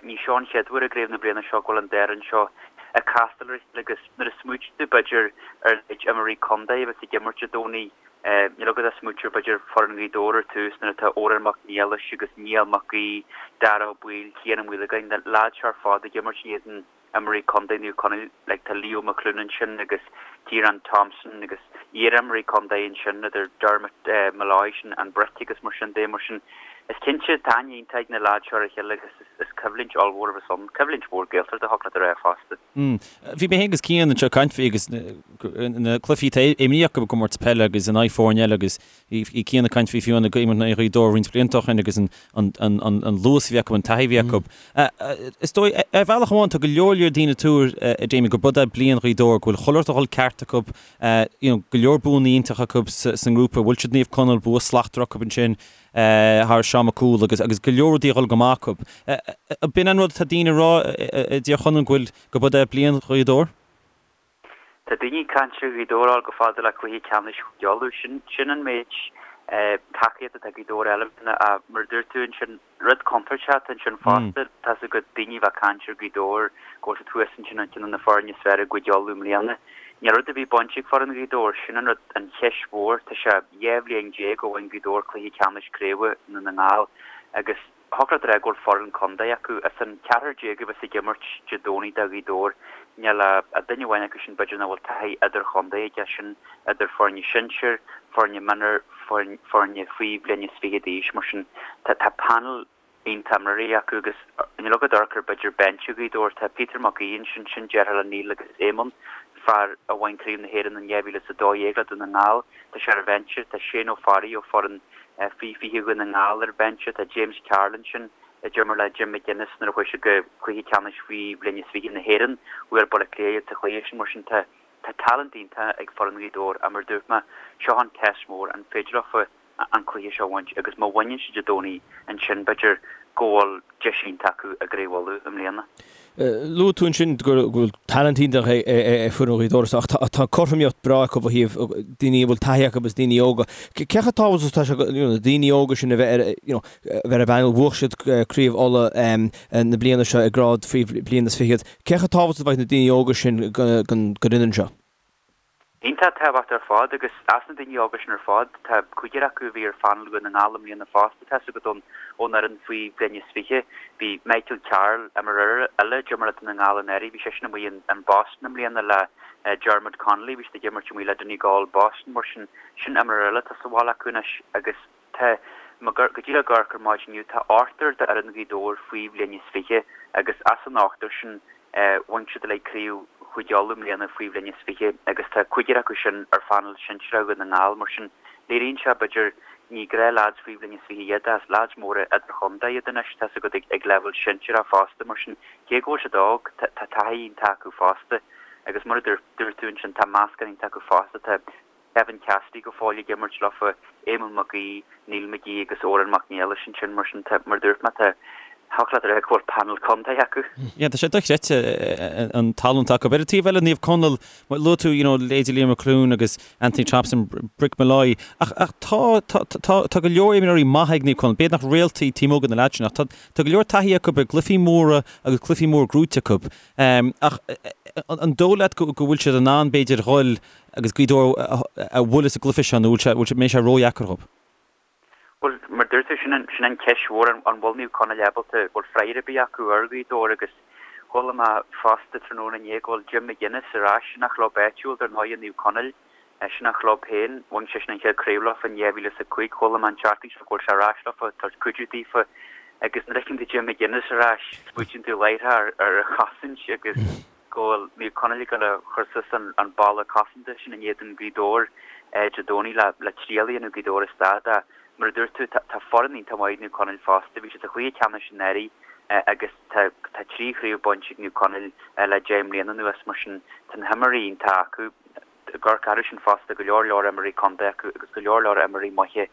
Ní seo an chéad uair i gcraobh na bliana seo go bhfuil an dá fhoireann seo ag castáil ar a chéile agus nuair a smaoitíonn tú b'fhéidir ar an méid imreoirí contae a bheas ag imirt Dé Domhnaigh, níl agat ach smaoitiú ar b'fhéidir foireann Ghaoth Dobhair ar tús nuair atá Odhrán Mac Niallais agus Niall Mac Aoidh, Dara Ó Baoill, Cian Ó Maolagáin, na leaids seo ar fad ag imirt in éadan imreoirí contae Naomh Conaill, like tá Leo McLoone ansin agus Ciarán Thompson agus iar-imreoirí contae ansin idir Dermot Molloy sin an Brick agus mar sin de, mar sin is cinnte tá aithne iontach ag na leaids seo ar a chéile agus is coimhlint ollmhór a bheas ann, coimhlint mhór Gaeltachta thiocfadh leat a rá fosta. Bhí mé féin agus Cian anseo ag caint faoi agus na cluichí atá imrithe acu i gcomórtas peile agus in aghaidh foirne eile agus Bhí Cian ag caint faoi fiú ag imirt in aghaidh Ghaoth Dobhair roinnt blianta ó shin agus an luas a bhí acu, an taithí a bhí acu. Is dóigh, ar bhealach amháin, tá go leor leor daoine ag tuar, a Damien, gurb é bliain Ghaoth Dobhair, go bhfuil chuile rud ag dul ceart acu, you know, go leor buanna iontacha acu sa ngrúpa, bhuail siad Naomh Conaill, bua slachtmhar acu ansin thar Seán Mac Cumhaill agus agus go leor rudaí ag dul go maith acu. B'in an rud atá daoine ag rá i dTír Chonaill, go bhfuil, gurb é bliain Ghaoth Dobhair? Tá daoine ag caint ar Ghaoth Dobhair a fháil chomh fada le cluiche ceannais Chúige Uladh. Sin, sin an méid tacaíochta atá Gaoth Dobhair a fháil i mbliana ach mar a dúirt tú ansin, rud contúirteach atá ansin fosta. Tá's agat daoine a bheith ag caint ar Ghaoth Dobhair go bhfuil siad thuas ansin ar cheann de na foirne is fearr i gCúige Uladh i mbliana. Níl rud ar bith bainte ag foireann Ghaoth Dobhair. Sin an rud, an cheist mhór. Tá sé 12 bhliain ó bhain Gaoth Dobhair cluiche ceannais craoibhe i nDún na nGall agus Thiocfadh leat a rá go bhfuil foireann contae acu. As an cheathrar déag a bheas ag imirt Dé Domhnaigh do Ghaoth Dobhair, níl ach duine amháin acu sin b'fhéidir nach bhfuil taithí idirchontae aige, sin idir foirne sinsir, foirne mionúir, foirne faoi bhliain is fiche d'aois. Mar sin, tá panel iontach imreoirí acu agus níl agat amharc ar b'fhéidir binse Ghaoth Dobhair. Tá Peter Mac Aoidh ansin, sin deartháir le Neil agus Éamonn, fear a bhain Craobh na hÉireann in 2012 le Dún na nGall. Tá sé ar an bhinse. Tá Shane Ó Fearraigh ó foireann Faoi 20 Dhún na nGall ar an bhinse. Tá James Carroll ansin a d'imir le Jim McGuinness nuair a chuaigh siad go cluiche ceannais faoi bhliain is 20 na hÉireann. Bhuail Baile Átha Cliath iad sa chluiche sin. Mar sin tá tá talent iontach ag foireann Ghaoth Dobhair ach mar a dúirt mé, seo an test mór, an féidir leofa an cluiche seo a bhaint agus má bhaineann siad Dé Domhnaigh ansin b'fhéidir go bhfuil deis iontach acu i gCraobh Uladh i mbliana. Luaigh tú ansin go bhfuil talent iontach ag foireann Ghaoth Dobhair ach tá cothromaíocht breá acu ó thaobh daoine a bhfuil taithí acu agus daoine óga. Cé chomh tábhachtach is atá sé na daoine óga sin a bheith ar you know a bheith ar an bpainéal? Bhuaigh siad Craobh Uladh na bliana seo i ngrád faoi bhliain is fichead. Cé chomh tábhachtach is a bheidh na daoine óga sin don fhoireann seo? Iontach tábhachtach ar fad agus as na daoine óga sin ar fad, tá cúigear acu a bhí ar phainéal Dhún na nGall i mbliana fosta, tá's agat ón fhoireann faoi bhliain is 20. Bhí Michael Carroll, imreoir eile, a d'imir le Dún na nGall anuraidh, bhí seisean amuigh in Boston i mbliana le Dermot Connolly, bhí siad ag imirt amuigh le Donegal Boston, mar sin, sin imreoir eile atá sa bhaile acu anois agus tá, go díreach ag amharc ar maidin inniu, tá ochtar d'fhoireann Ghaoth Dobhair faoi bhliain is 20 agus as an ochtar sin, Bhain siad uilig Craobh Chúige Uladh i mbliana faoi bhliain is 20 agus tá cúigear acu sin ar phainéal sinsearach Dhún na nGall. Mar sin, léiríonn sé, b'fhéidir, ní gnáth leaids faoi bhliain is 20 iad ach leaids móra idirchontae iad anois, tá's agat, ag leibhéal sinsearach fosta. Mar sin, cé go bhfuil siad óg, tá taithí iontach acu fosta agus mar a dúirt tú ansin, tá meascán iontach acu fosta. Tá Kevin Cassidy go fóill ag imirt leofa, Éamonn Mac Aoidh, Neil McGee agus Odhrán Mac Niallais ansin. Mar sin, tá, mar a dúirt mé, tá. Thiocfadh leat a rá go bhfuil panel contae acu. Yeah, tá sé dochreidte an tallann atá acu. Ar an taobh eile, Naomh Conaill, luaigh tú, you know, leithéidí Liam McLoone agus Anthony Thompson, Brick Molloy, ach, ach tá, tá, tá, tá go leor imreoirí maithe ag Naomh Conaill. B'fhéidir nach réaltaí taobh amuigh de na leaids sin, ach tá, tá go leor taithí acu i gcluichí móra agus cluichí móra gnóite acu. Ach an dóigh leat go, go bhfuil siad in ann, b'fhéidir, dhul agus Gaoth Dobhair a bhualadh sa gcluiche seo nó bhfuil sé, bhfuil sé, mbeidh sé ródheacair dhóibh? Bhuel, mar dúirt tú, sin an, sin an cheist mhór, an, an bhfuil Naomh Conaill ábalta, bhfuil freagra ar bith acu ar Ghaoth Dobhair agus chuala mé fosta tráthnóna inné go bhfuil Jim McGuinness ar ais, sin a chlub áitiúil dar ndóigh, Naomh Conaill, sin a chlub féin, bhain seisean an chéad chraobh leofa in 2005, chuala mé an tseachtain seo go bhfuil sé ar ais leofa, ag tabhairt cuidiú daofa agus nuair a fheiceann tú Jim McGuinness ar ais, smaoitíonn tú láithreach ar, ar an chosaint agus. go bhfuil Naomh Conaill ag dul a chur suas an balla cosanta sin in éadan Gaoth Dobhair Dé Domhnaigh le triail a dhéanamh Gaoth Dobhair a stad ach mar a dúirt tú tá foireann iontach maith ag Naomh Conaill fosta. Bhí siad sa chluiche ceannais anuraidh agus tá 3 chraobh bainte ag Naomh Conaill le 10 mbliana anuas mar sin tá na himreoirí iontach acu. Ag amharc orthu sin fosta go leor leor imreoirí contae acu agus go leor leor imreoirí maithe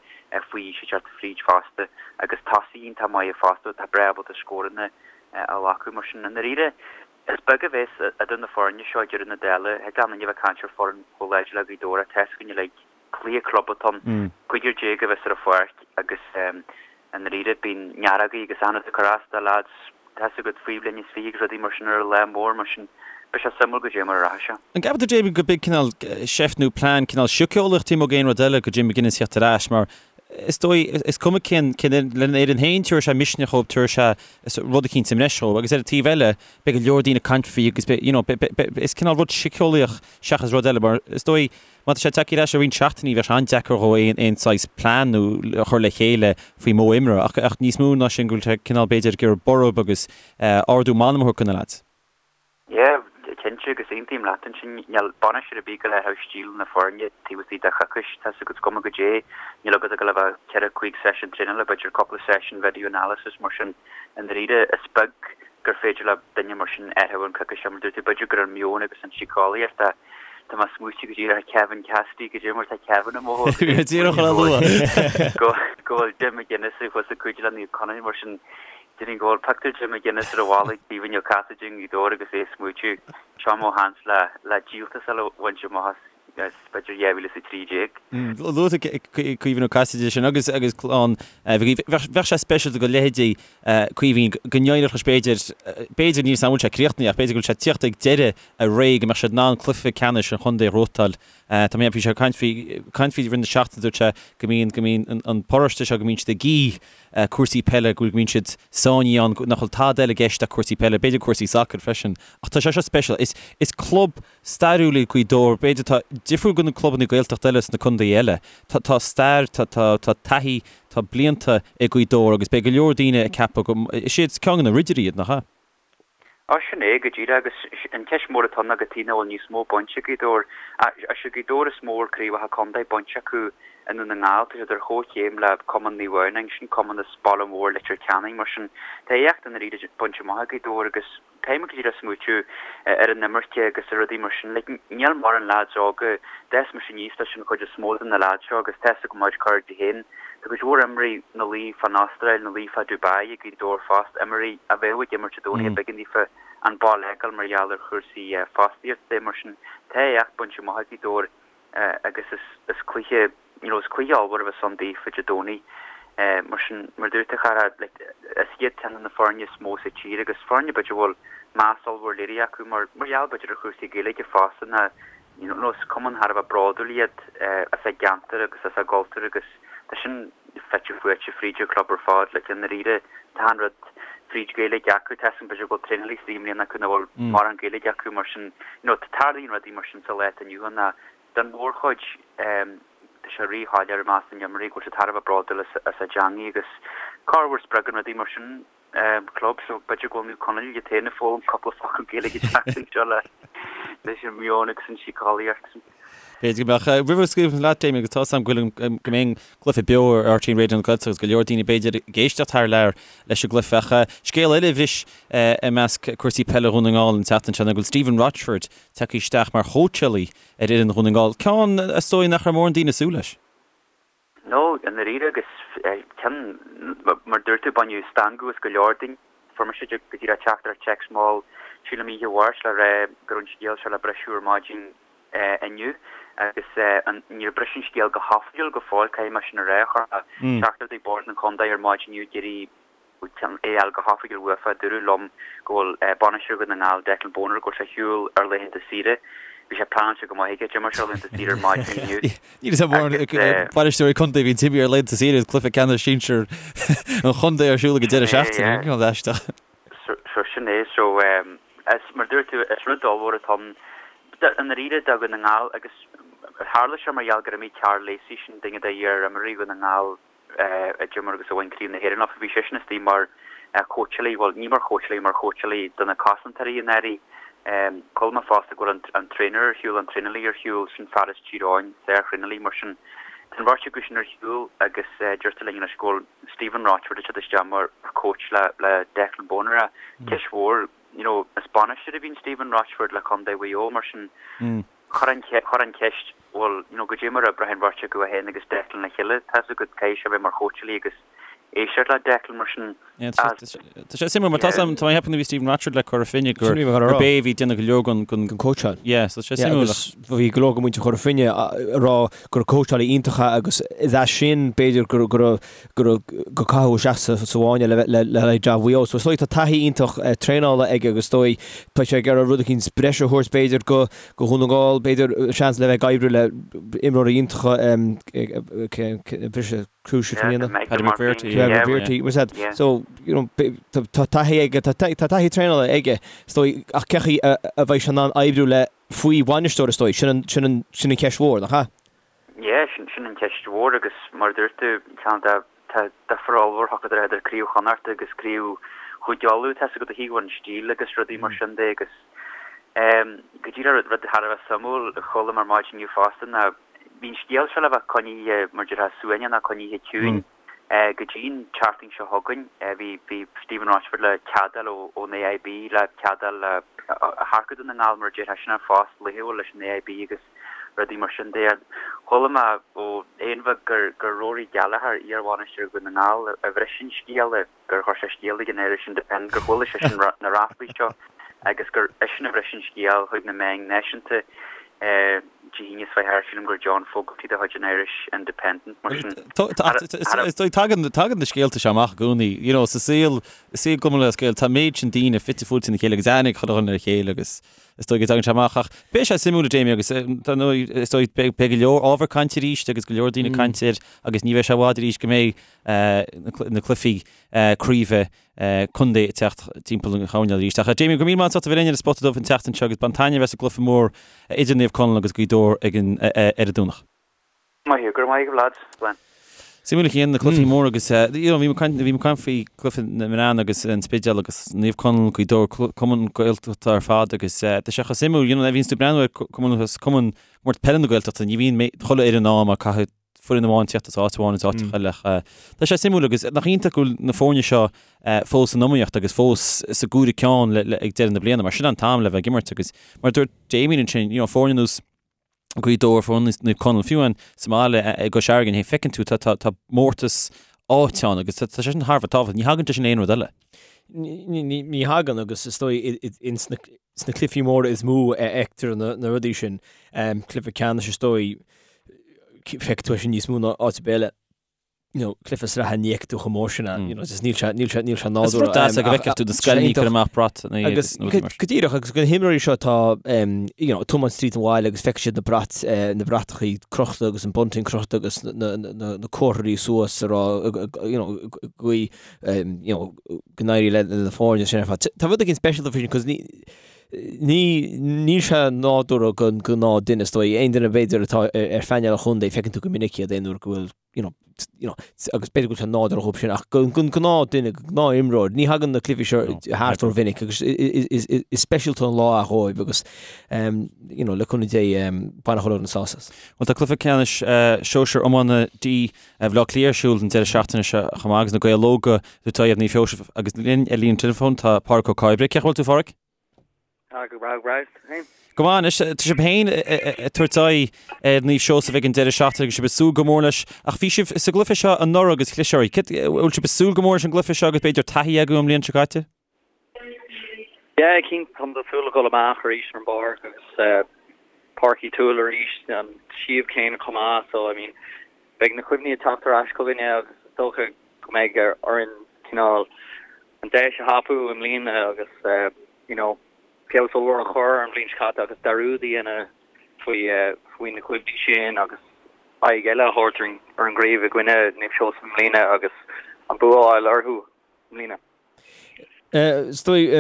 faoi aois ag teacht fríd fosta agus tosaithe iontach maithe fosta atá breá ábalta scóranna a ghlacadh. Mar sin, i ndáiríre, is beag a bheas idir na foirne seo ag deireadh na dála. Thig le aon duine a bheith ag caint ar foireann chomh láidir le Gaoth Dobhair ach tá a fhios againn uilig, cluiche club atá ann, 15 a bheas ar an pháirc agus i ndáiríre bíonn nearógaí agus achan rud ag cur as do leaids, tá a fhios agat, faoi bhliain is 20 agus rudaí mar sin ar an lá mór, mar sin beidh sé suimiúil goidé mar a rachaidh sé. An gceapann tú, Damien, go b'in cineál seift nó plean cineál síceolaíoch taobh amuigh d'aon rud eile do Jim McGuinness theacht ar ais mar is dóigh, is cuma cén, cén, lena fhoireann féin tabharfaidh sé misneach dhóibh, tabharfaidh sé rud eicínt sa mbreis dhóibh agus ar an taobh eile beidh go leor daoine ag caint faoi agus beidh, you know, beidh, beidh, is cineál rud síceolaíoch seachas rud eile mar is dóigh má tá sé tagtha ar ais i roinnt seachtainí bheadh sé an-deacair dhó aon, aon saghas plean nó a chur le chéile faoi mhodh imeartha ach, ach níos mó ná sin go bhfuil sé cineál b'fhéidir ag iarraidh borradh agus ardú meanman a thabhairt do na leaids. Yeah, cinnte, agus aontaím leat ansin. Níl bainisteoir ar bith ag gabháil a athrú stíl na foirne taobh istigh de choicís, tá 's agat, is cuma goidé. Níl agat ach gabháil a bheith ceithre, cúig seisiún traenála, b'fhéidir cúpla seisiún video analysis, mar sin, i ndáiríre, is beag gur féidir le duine mar sin athrú an coicís seo, mar dúirt tú, b'fhéidir gur an meon agus an síceolaíocht a Tá mé ag smaoitiú go díreach ar Kevin Cassidy, goidé mar tá Kevin i mo Bhí mé díreach chun a lua. go bhfuil Jim McGuinness thuas ag cuidiú le Naomh Conaill, mar sin, Déarfainn go bhfuil pictiúr Jim McGuinness ar an bhalla ag Caoimhín Ó Casaide i nGaoth Dobhair agus é ag smaoitiú, seo mo sheans le le díoltas eile a bhaint amach as b'fhéidir 2013. Luaigh tú Caoimhín Ó Casaide sin agus agus clann Mhic Aoidh. Bheadh sé speisialta do leithéidí Caoimhín go n-éireodh leis b'fhéidir, b'fhéidir níl 's agam an bhfuil sé críochnaithe ach b'fhéidir go bhfuil sé ag tíocht ag deireadh a ré go mbeadh siad in ann cluiche ceannais an chontae a ghnóthachtáil. Tá mé, bhí sé ag caint faoi, caint faoi i rith na seachtaine dúirt sé go mbíonn, go mbíonn an paróiste seo go mbíonn siad ag ithe cúrsaí peile, go mbíonn siad sáinnithe ann, nach bhfuil tada eile i gceist ach cúrsaí peile, b'fhéidir cúrsaí sacair freisin. Ach tá sé seo speisialta. Is, is club stairiúil é Gaoth Dobhair, b'fhéidir atá difriúil go na clubanna Gaeltachta eile sna contaetha eile. Tá, tá stair, tá, tá, tá taithí, tá blianta ag Gaoth Dobhair agus beidh go leor daoine ag ceapadh go, is iad ceann de na ridirí iad, nach ea? Á, sin é go díreach, agus an cheist mhór atá ann ná cad chuige nach bhfuil níos mó bainte ag Gaoth Dobhair. Is é Gaoth Dobhair is mó a bhfuil craobhacha contae bainte acu i nDún na nGall, tá siad ar chomhchéim le Cumann Naomh Adhamhnáin, sin cumann as baile mór Leitir Ceanainn, mar sin tá éacht i ndáiríre bainte amach ag Gaoth Dobhair agus caithfidh muid go díreach smaoitiú ar an imirce agus ar rudaí mar sin. Like, níl mórán leaids óga, d'fhás mise aníos leis an chuid is mó de na leaids seo agus tá 'fhios agam mar cairde féin. Tá cuid mhór imreoirí ina luí fán Astráil, ina luí fá Dubai ag Gaoth Dobhair fosta, imreoirí a bheadh ag imirt Dé Domhnaigh ach b'éigean daofa an baile a fhágáil mar gheall ar chúrsaí fostaíochta. Mar sin, tá éacht bainte amach ag Gaoth Dobhair agus is cluiche, you know, is cluiche ollmhór a bheas ann daofa Dé Domhnaigh. Mar sin, mar a dúirt tú, a chara, like, is iad ceann de na foirne is mó sa tír agus foirne b'fhéidir a bhfuil meas ollmhór léirithe acu mar gheall b'fhéidir ar chúrsaí Gaeilge fosta ná You know, is cumann thar a bheith bródúil iad as a gceantar agus as a gcultúr agus tá sin fite fuaite fríd an chlub ar fad. Like, i ndáiríre, tá an rud fríd Gaeilge acu, tá 'fhios agam b'fhéidir go bhfuil traenálaí istigh i mbliana acu nach bhfuil mórán Gaeilge acu mar sin, you know, tarlaíonn rudaí mar sin sa lá atá inniu ann ach don mhórchuid tá sé rí-shoiléir i measc na n-imreoirí go bhfuil siad thar a bheith bródúil as a dteangaidh agus corruair spreagann rudaí mar sin club so b'fhéidir go bhfuil Naomh Conaill iad féin ag foghlaim cúpla focal Gaeilge an tseachtain seo le leis an meon agus an síceolaíocht. B'fhéidir go mbeadh. Roimh a scaoilfidh leat, Damien, agus tá 'fhios agam go bhfuil go mbeidh an cluiche beo ar RTÉ Raidió na Gaeltachta agus go leor daoine b'fhéidir ag éisteacht thar lear leis an gcluiche ach scéal eile a bhris i measc cúrsaí peile Dhún na nGall an tseachtain seo ná go bhfuil Stephen Rochford tagtha isteach mar chóitseálaí ar fhoireann Dhún na nGall, ceann is dóigh nach raibh mórán daoine ag súil leis. No, i ndáiríre agus ceann, mar dúirt tú, baineadh stangadh as go leor daoine. Fuair mise go díreach teachtaireacht téacs mall, sílim oíche Mháirt le rá go raibh an scéal seo le briseadh ar maidin inniu agus níor briseadh an scéal go hoifigiúil go fóill, caithfidh mé sin a rá. Chuir mé teachtaireacht ag Bord an Chontae ar maidin inniu ag iarraidh é a fháil go hoifigiúil uafa. Dúradh liom go bhfuil bainisteoir Dhún na nGall, Declan Bonner, go bhfuil sé ar shiúl ar laethanta saoire. Bhí sé pleanáilte go maith aige. D'imir sé ar laethanta saoire ar maidin inniu. Níl a fhios agam bainisteoirí contae a bhíonn imithe ar laethanta saoire agus cluiche ceannais sinsir an chontae ar siúl ag an deireadh seachtaine. Cineál aisteach. So sin é. So is mar dúirt tú, is rud ollmhór atá ann i ndáiríre do Dhún na nGall agus tharla sé mar gheall gur imigh Karl Lacey, sin duine d'iar-imreoirí Dhún na nGall, a d'imir agus a bhain Craobh na hÉireann leofa. Bhí seisean istigh mar chóitseálaí, bhuel, ní mar chóitseálaí, mar chóitseálaí do na cosantóirí i ndáiríre. Chuala mé fosta go bhfuil an traenálaí ar shiúl, an traenálaí ar shiúl, sin fear as Tír Eoghain, sár-thraenálaí, mar sin tá an bheirt acu sin ar shiúl agus deirtear linn anois go bhfuil Stephen Rochford ag teacht isteach mar coach le le Declan Bonner. Ceist mhór, you know, is bainisteoir a bhí in Stephen Rochford le Contae Mhaigh Eo, mar sin Chuir an chuir an cheist, bhuel, you know, goidé mar a oibreoidh an bheirt acu é féin agus Declan le chéile, tá's agat, caithfidh sé a bheith mar chóitseálaí agus éisteacht le Declan mar sin. Yeah, tá sé tá sé suimiúil mar tá tá mé ag ceapadh nuair a bhí Stephen Rochford le Cora Finne gur Sin a bhí mé ag rá. gurb é a bhí ag déanamh go leor den den cóitseáil. Yeah, so tá sé Yeah, suimiúil agus bhí go leor de mhuintir Chora Finne ag rá gur cóitseálaí iontach é agus is as sin b'fhéidir gur gur gur gur caitheadh isteach sa sa bhfáinne le le le haghaidh jab Mhaigh Eo. So is dóigh tá taithí iontach traenála aige agus is dóigh beidh sé ag iarraidh rud eicínt breise a thabhairt b'fhéidir go go Dhún na nGall, b'fhéidir, seans le bheith ag oibriú le imreoirí iontacha, briseadh crucial i mbliana. Paddy McBrearty, yeah. McBrearty, was that? So, you know, tá taithí aige, tá taithí traenála aige, is dóigh, ach cén chaoi a bheidh sé in ann oibriú le faoi bhainisteoir, is dóigh, sin an, sin an, sin an cheist mhór, nach ea? Yeah, sin, sin an cheist mhór agus mar a dúirt tú, ceann de Tá difear ollmhór idir idir Craobh Chonnacht agus Craobh Chúige Uladh, tá's agat ó thaobh an stíl agus rudaí mar sin de agus go díreach rud thar a bheith suimiúil a chuala mé ar maidin inniu fosta ná bhí an scéal seo le bheith coinnithe mar déarfá suaimhneach nó coinnithe ciúin go dtí an tseachtain seo chugainn. Bhí bhí Stephen Rochford le cead a fháil ón AIB le cead a fháil le hearcú Dún na nGall mar a déarfá sin an phost laethúil leis an AIB agus rudaí mar sin de. Chuala mé ó Aonbheag gur gur Rory Gallagher, iar-bhainisteoir Dhún na nGall, a bhris an scéal, gur chuir sé scéal chuig an Irish Independent, gur chuala seisean na ráflaí seo agus gur eisean a bhris an scéal chuig na meáin náisiúnta Dé hAoine seo thart, sílim gur John Fogarty de chuid an Irish Independent, mar sin. Is dóigh, tagann tagann na scéalta seo amach i gcónaí, you know, sa saol, i saol Chumann Lúthchleas Gael, tá an méid sin daoine fite fuaite ina chéile agus aithne ag chuile dhuine ar a chéile agus Is dóigh go dtagann sé amach ach beidh sé suimiúil a Jamie agus dar ndóigh is dóigh beidh go leor ábhar cainte arís agus go leor daoine ag caint air agus ní bheidh sé i bhfad arís go mbeidh na cluichí craoibhe contae ag teacht timpeall an choirnéil arís. Ach a Jamie, go raibh míle maith agat as ucht a bheith linn ar an Spota Dubh an tseachtain seo agus bain taitneamh as an gcluiche mór idir Naomh Conaill agus Gaoth Dobhair ag an ar an Domhnach. Maith thú, go raibh maith agat lads. Slán. Suimiúil a Chian, na cluichí móra agus you know bhí mé ag caint bhí mé ag caint faoi cluiche na mban agus an Spidéal agus Naomh Conaill, Gaoth Dobhair, Cumann Gaeltachta ar fad agus tá sé chomh suimiúil you know nuair a bhíonns tú ag breathnú ar Cumann Cumann Comórtas Peile na Gaeltachta ní bhíonn mé chuile fhoireann ann mar caithfidh foireann amháin tíocht as áit amháin as áit eile ach tá sé suimiúil agus nach iontach go bhfuil na foirne seo fós san iomaíocht agus fós sa gcomhaireamh ceann ag deireadh na bliana mar sin an t-am le bheith ag imirt agus mar a dúirt Damien ansin you know foirne ar nós Gaoth Dobhair, foirne ar nós Naomh Conaill, fiú amháin sa mbaile i gCois Fharraige, féin, feiceann tú, tá, tá, tá mórtas áite ann agus tá, tá sé sin thar a bheith tábhachtach. Ní thagann sé sin le aon rud eile. Ní, ní, ní thagann agus is dóigh ins na, sna cluichí móra is mó a fheictear na, na rudaí sin. Cluiche ceannais is dóigh, feicfidh tú é sin níos mó ná áit ar bith eile. you know, cluiche sraithe ní fheicfidh tú chomh mór sin ann, you know, just níl sé, níl sé, níl sé Is nádúrtha. rud deas é go bhfeicfeadh tú na scoileanna ag cur amach brat nó iad Agus nó go go díreach agus go na himreoirí seo atá um, you know, tiomáint tríd an bhaile agus feicfidh siad na brait, eh, na bratachaí crochta agus an bunting crochta agus na, na, na, na, na comharthaí suas a rá, you know, guí, um, you know, go n-éirí le, le na foirne sin ar fad. Tá rud éigin speisialta faoi sin, 'cause ní, ní, níl sé nádúrtha don gnáth duine, is dóigh, aon duine b'fhéidir atá ar, ar phainéal an chontae, feiceann tú go minic iad aon uair go bhfuil you know, you know, agus b'fhéidir go bhfuil sé nádúrtha dhóibh sin, ach don gnáth duine, gnáth imreoir, ní thagann na cluichí seo thart rómhinic agus is speisialta an lá é dhóibh agus you know, le cúnamh Dé bainfidh chuile dhuine sásamh as. Bhuel tá cluiche ceannais sóisir iomána D Bhaile Átha Cliath ar siúl an deireadh seachtaine seo chomh maith agus na Gaeil Óga ag tabhairt aghaidh ar Naomh Sheosaimh agus linn ar líne teileafóin tá Pádraic Ó Cairbre. Cén chaoi a bhfuil tú a Phádraic? Tá go breá, go breá. Féin? Go maith anois, tá sibh féin ag tabhairt aghaidh ar Naomh Seosamh ag an deireadh seachtaine agus sibh ag súil go mór leis. Ach bhí sibh sa gcluiche seo anuraidh agus chlis oraibh. Bhfuil sibh ag súil go mór leis an gcluiche seo agus b'fhéidir taithí agaibh ón mbliain seo caite? Yeah, cinnte, táimid ag súil le dhul amach arís ar an bpáirc agus Páirc Uí Tuathail arís, an suíomh céanna chomh maith, so I mean beidh na cuimhní ag teacht ar ais chugainne agus is dócha go mbeidh orainn cineál an deis a thapú i mbliana agus you know feabhas ollmhór a chur ar an bhliain seo caite agus dearúd a dhéanamh faoi faoi na cuimhní sin agus aghaidh eile a thabhairt ar an gcraobh i gcoinne Naomh Seosamh i mbliana agus an bua a fháil orthu i mbliana. Is dóigh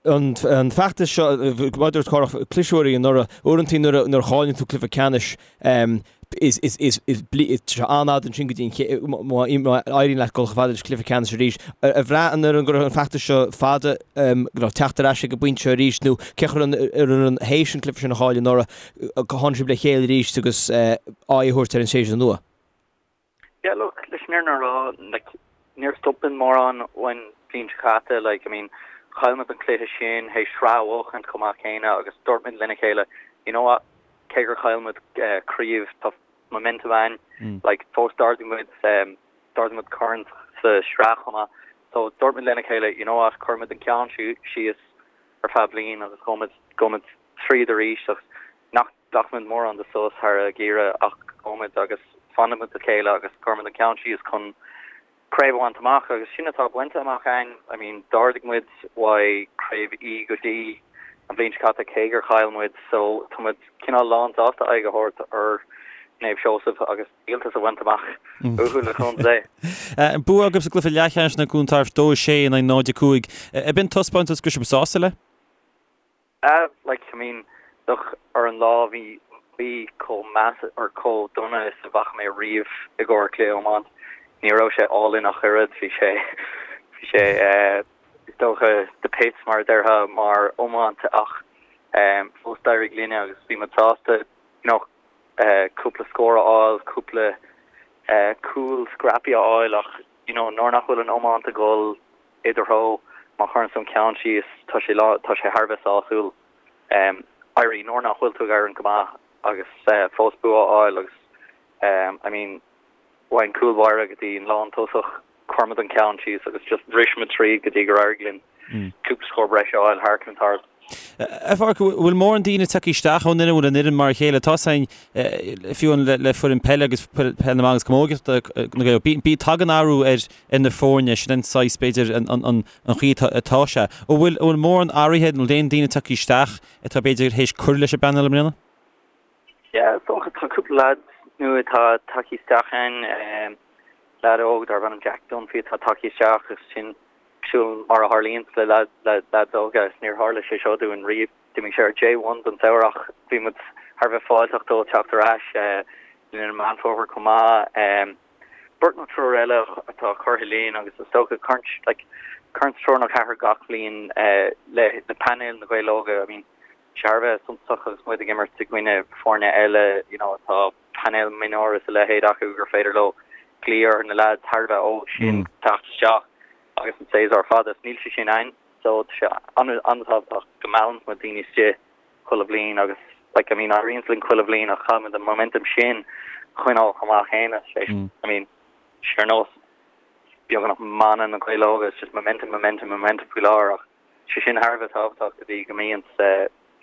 an feachtas seo, mar a dúirt Cárthach, cliseadh oraibh anuraidh. Uaireanta nuair a chailleann tú cluiche ceannais, is sé an-fhada ansin go dtí an má éiríonn leat dul chomh fada leis an cluiche ceannais arís. Ar bhraith an fhoireann go raibh an feachtas seo fada, go raibh teacht ar ais ag an bpointe seo arís nó cé chaoi an fhoireann théis an cluiche sin a chailleadh anuraidh, tháinig sibh le chéile arís agus aghaidh a thabhairt ar an séasúr nua? Yeah look, leis an fhírinne a rá, like, níor stop muid mórán ón bhliain seo caite, like, I mean, chaill muid an cluiche sin théis sraith a bhuachaint chomh maith céanna agus dúirt muid lena chéile, you know what, cé gur chaill muid craobh, tá momentum againn, like, fós d'ardaigh muid, d'ardaigh muid corn sa sraith chomh maith, so dúirt muid lena chéile, you know what, cuirfidh muid an ceann síos ar feadh bliain agus gabhfaidh muid, gabhfaidh muid tríd arís agus nach nglacfaidh muid mórán de sos thar an ngeimhreadh ach gabhfaidh muid agus fanfaidh muid le chéile agus cuirfidh muid an ceann síos chun craobh a bhaint amach agus sin atá bainte amach againn. I mean d'ardaigh muid uaidh craobh E go D an bhliain seo caite cé gur chaill muid so tá muid cineál lán sásta aghaidh a thabhairt ar Naomh Seosamh agus díoltas a bhaint amach uathu le cúnamh Dé. Bua agaibh sa gcluiche leathcheannais in aghaidh Dhún Tairbh 2-6 in aghaidh 0-5. Ab in taispeántas go raibh sibh sásta le? Ah like I mean look ar an lá bhí bhí chomh measa or chomh dona is a bhfaca mé riamh i gcomhair cluiche iomáint. Ní raibh sé álainn ach oiread, bhí sé bhí sé eh is dócha the pits mar a déarfá mar iomáint ach eh fós d'éirigh linne agus bhí muid sásta you know eh cúpla scór a fháil, cúpla eh cúl scrappy a fháil ach you know nuair nach bhfuil an iomáint ag dul i do threo, má chuireann tú an ceann síos, tá sé lá, tá sé thar a bheith sásúil éirí nuair nach bhfuil tú ag éirí go maith agus fós bua a fháil agus I mean ón gcúl báire go dtí an lán tosach, chuir muid an ceann síos agus just bhris muid tríd go dtí gur éirigh linn cúpla scór breise a fháil thar Cluain Tairbh. A Pháraic, bhfuil mórán daoine tagtha isteach ón fhoireann, bhfuil an fhoireann mar a chéile? Tá a fhios againn, fiú le foireann peile agus peil na mban agus camógaíochta na Gaeil, bí, tagann athrú ar na foirne, sin an saghas, b'fhéidir, an chaoi atá sé. An bhfuil, an bhfuil mórán athraithe, an bhfuil aon daoine tagtha isteach atá b'fhéidir théis cur leis an bpainéal i mbliana? Yeah, is dócha, tá cúpla leaid nua atá tagtha isteach ann, leaid óg darb ainm Jack Dunphy atá tagtha isteach agus sin cosúil mar a tharlaíonns le leaids óga is níor tharla sé seo dúinn riamh. D'imigh sé ar J1 don samhradh ach bhí muid thar a bheith fáilteach dó teacht ar ais linn i Meán Fómhair chomh maith. Beirt nó triúr eile atá curtha linn agus is dócha cuireann like cuireann triúr nó ceathrar gach bliain le le painéal na Gaeil Óga. I mean thar a bheith suntasach agus muid ag imirt i gcoinne foirne eile you know atá painéal mionúir is a leithéid acu gur féidir leo glaoch ar na leaids thar a bheith óg sin teacht isteach agus an séasúr fada is níl sé sin ann so tá sé an-tábhachtach go meallann muid daoine istigh chuile bhliain agus like I mean éiríonn linn chuile bhliain ach caithfidh muid an momentum sin a choinneáil chomh maith céanna sé I mean sé ar nós beagnach mana na Gaeil Óga it's just momentum momentum momentum faoi láthair ach sé sin thar a bheith tábhachtach go dtí go mbíonn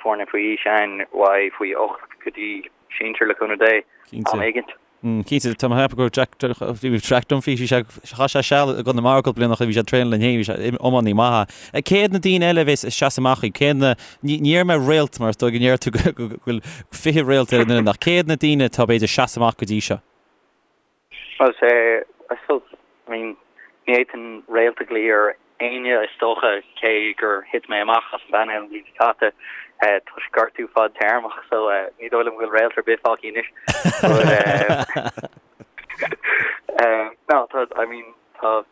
foirne faoi aois ann uaidh faoi 8 go dtí sinsir le cúnamh Dé am éigint. Cinnte, tá mé ag ceapadh go raibh Jack, bhí Jack Dunphy, bhí sé, chaith sé seal i gConamara cúpla bliain ó shin, bhí sé ag traenáil linn féin, bhí sé iománaí maith. Cé hiad na daoine eile a bheas ag seasamh amach daoibh? Cé hiad na, ní déarfaidh mé réalt mar is dóigh go ndeir tú go bhfuil 20 réalt ar an bhfoireann ach cé hiad na daoine atá b'fhéidir ag seasamh amach go dtí seo? Well, sé, I suppose, I mean, ní fhéadfainn réalt a ghlaoch ar éinne is dócha, cé gur thit mé amach as an bpainéal an bhliain seo caite toisc gortú fadtéarmach, so ní dóigh liom go bhfuil réalt ar bith fágtha anois. But, no, tá, I mean, tá,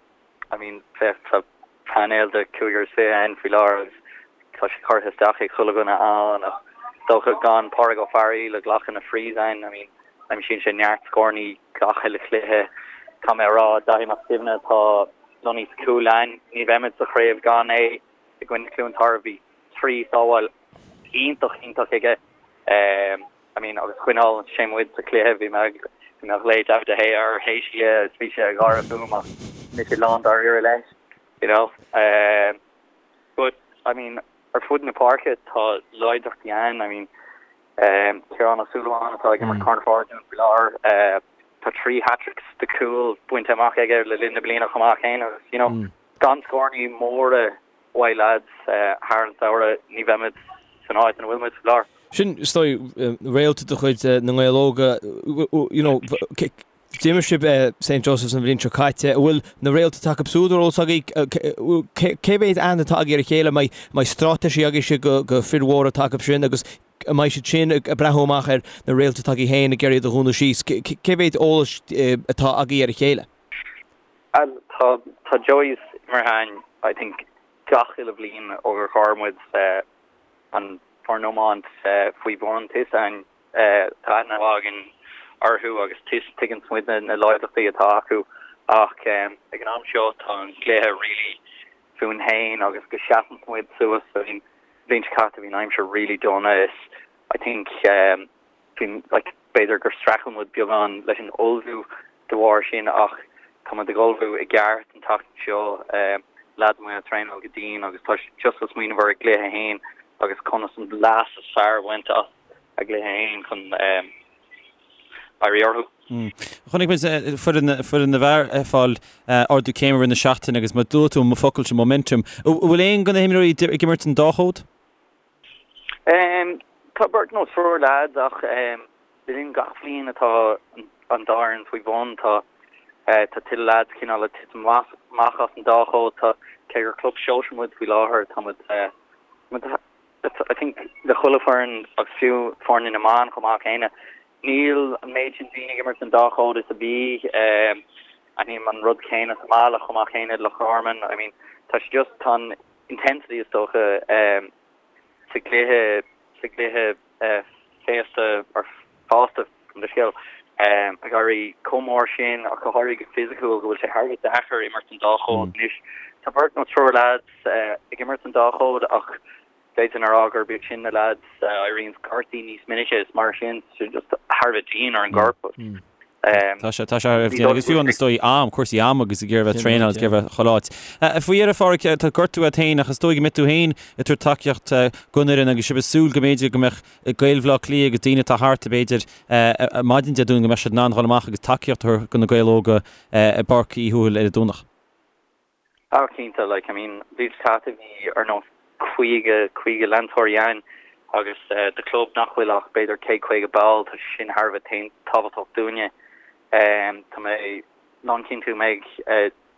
I mean, féach, tá painéal de chúigear is 20 ann faoi láthair agus tá sé curtha isteach ag chuile dhuine ann ach is dócha gan Pádraig Ó Fearghaíl ag glacadh na frees ann, I mean, aimsíonn sé neart scórannaí gach uile chluiche. Caithfidh mé a rá, Daithí Mac Suibhne atá lonnaithe sa chúl ann, ní bheimid sa chraobh gan é i gcoinne Chluain Tarbh. Bhí 3 sábháil iontach, iontach aige. I mean, agus choinneáil sé muid sa chluiche, bhí mé ag, bhí mé ag glaoch David De Gea air théis an chluiche agus bhí sé ag gáire fúm ach mise lán dáiríre leis, you know. But. I mean, ar fud na páirce tá láidreachtaí ann, I mean, Ciarán Ó Súilleabháin atá ag imirt corner-forward dúinn faoi láthair, tá 3 hat-tricks de chúil bainte amach aige le linn na bliana chomh maith céanna agus, you know, gan scórannaí móra uaidh lads thar an samhradh ní bheimid san áit ina bhfuil muid faoi láthair. Sin, is dóigh, réalta de chuid na nGael Óga, you know, D'imir sibh St Joseph's an bhliain seo caite. An bhfuil na réalta atá acu siúd ar eolas agaibh? Cé mhéad aithne atá agaibh ar a chéile? An mbeidh straitéisí agaibhse do fir mhóra atá acu sin agus an mbeidh siad sin ag breathnú amach ar na réalta atá agaibh féin ag iarraidh iad a dhúnadh síos? Cé mhéad eolais atá agaibh ar a chéile? Tá tá Joey's imeartha againn I think gach uile bhliain ó gur chuir muid an foireann iomáint faoi bhun. Tá fhios againn Tá aithne mhaith againn orthu agus tuigeann muid na láidreachtaí atá acu ach ag an am seo tá an cluiche really fúinn féin agus go seasann muid suas. I mean, bhliain seo caite bhí an aimsir really dona is I think bhí like b'fhéidir gur streachail muid beagán leis an ullmhú de bharr sin ach tá muid ag ullmhú i gceart an tseachtain seo. Lads amuigh ag traenáil go dian agus tá siad just ag smaoineamh ar a gcluiche féin agus conas an leas is fearr a bhaint as a gcluiche féin chun éirí orthu. Chonaic muid foireann foireann na bhfear ag fáil ardú céime i rith na seachtaine agus mar dúirt tú an focal sin momentum. An bhfuil aon de na himreoirí ag imirt an dá chód? Tá beirt nó triúr leaids ach le linn gach bhliain atá an dá fhoireann faoi bhun tá tá tuilleadh leaids cineál ag titim amach as an dá chód. Tá cé gur club sóisir muid faoi láthair tá muid I think le chuile foireann agus fiú foirne na mban chomh maith céanna, níl an méid sin daoine ag imirt an dá chód is a bhí. Aithním an rud céanna sa mbaile chomh maith céanna Loch Garman. I mean tá sé just, tá an intensity is dócha sa gcluiche, sa gcluiche féasta or fásta gabh mo leithscéal, ag éirí chomh mór sin ach go háirithe go fisiciúil go bhfuil sé thar a bheith deacair imirt an dá chód anois. Tá beirt nó triúr leaids ag imirt an dá chód ach d'fhéadfainn a rá gurb iad sin na leaids a éiríonn gortaithe níos minice is mar sin tá sé just thar a bheith dian ar an gcorp. Tá sé, tá sé thar a bheith dian agus fiú an is dóigh am, cúrsaí ama agus ag iarraidh bheith traenáil agus ag iarraidh bheith chuile áit. Faoi dheireadh, a Pháraic, tá gortú agat féin ach is dóigh go mbeidh tú féin ag tabhairt tacaíocht don fhoireann agus sibh ag súil go mb'fhéidir go mbeadh Gaeil Bhaile Átha Cliath agus daoine atá thart, b'fhéidir, maidin Dé Domhnaigh go mbeadh siad in ann dhul amach agus tacaíocht a thabhairt do na Gaeil Óga i bPáirc Uí Thuathail ar an Domhnach. Ah cinnte, like, I mean, bhí caite bhí ar nós 50, 50 leantóirí ann agus do chlub nach bhfuil ach b'fhéidir 150 ball, tá sé sin thar a bheith tábhachtach dúinne. Tá mé lánchinnte go mbeidh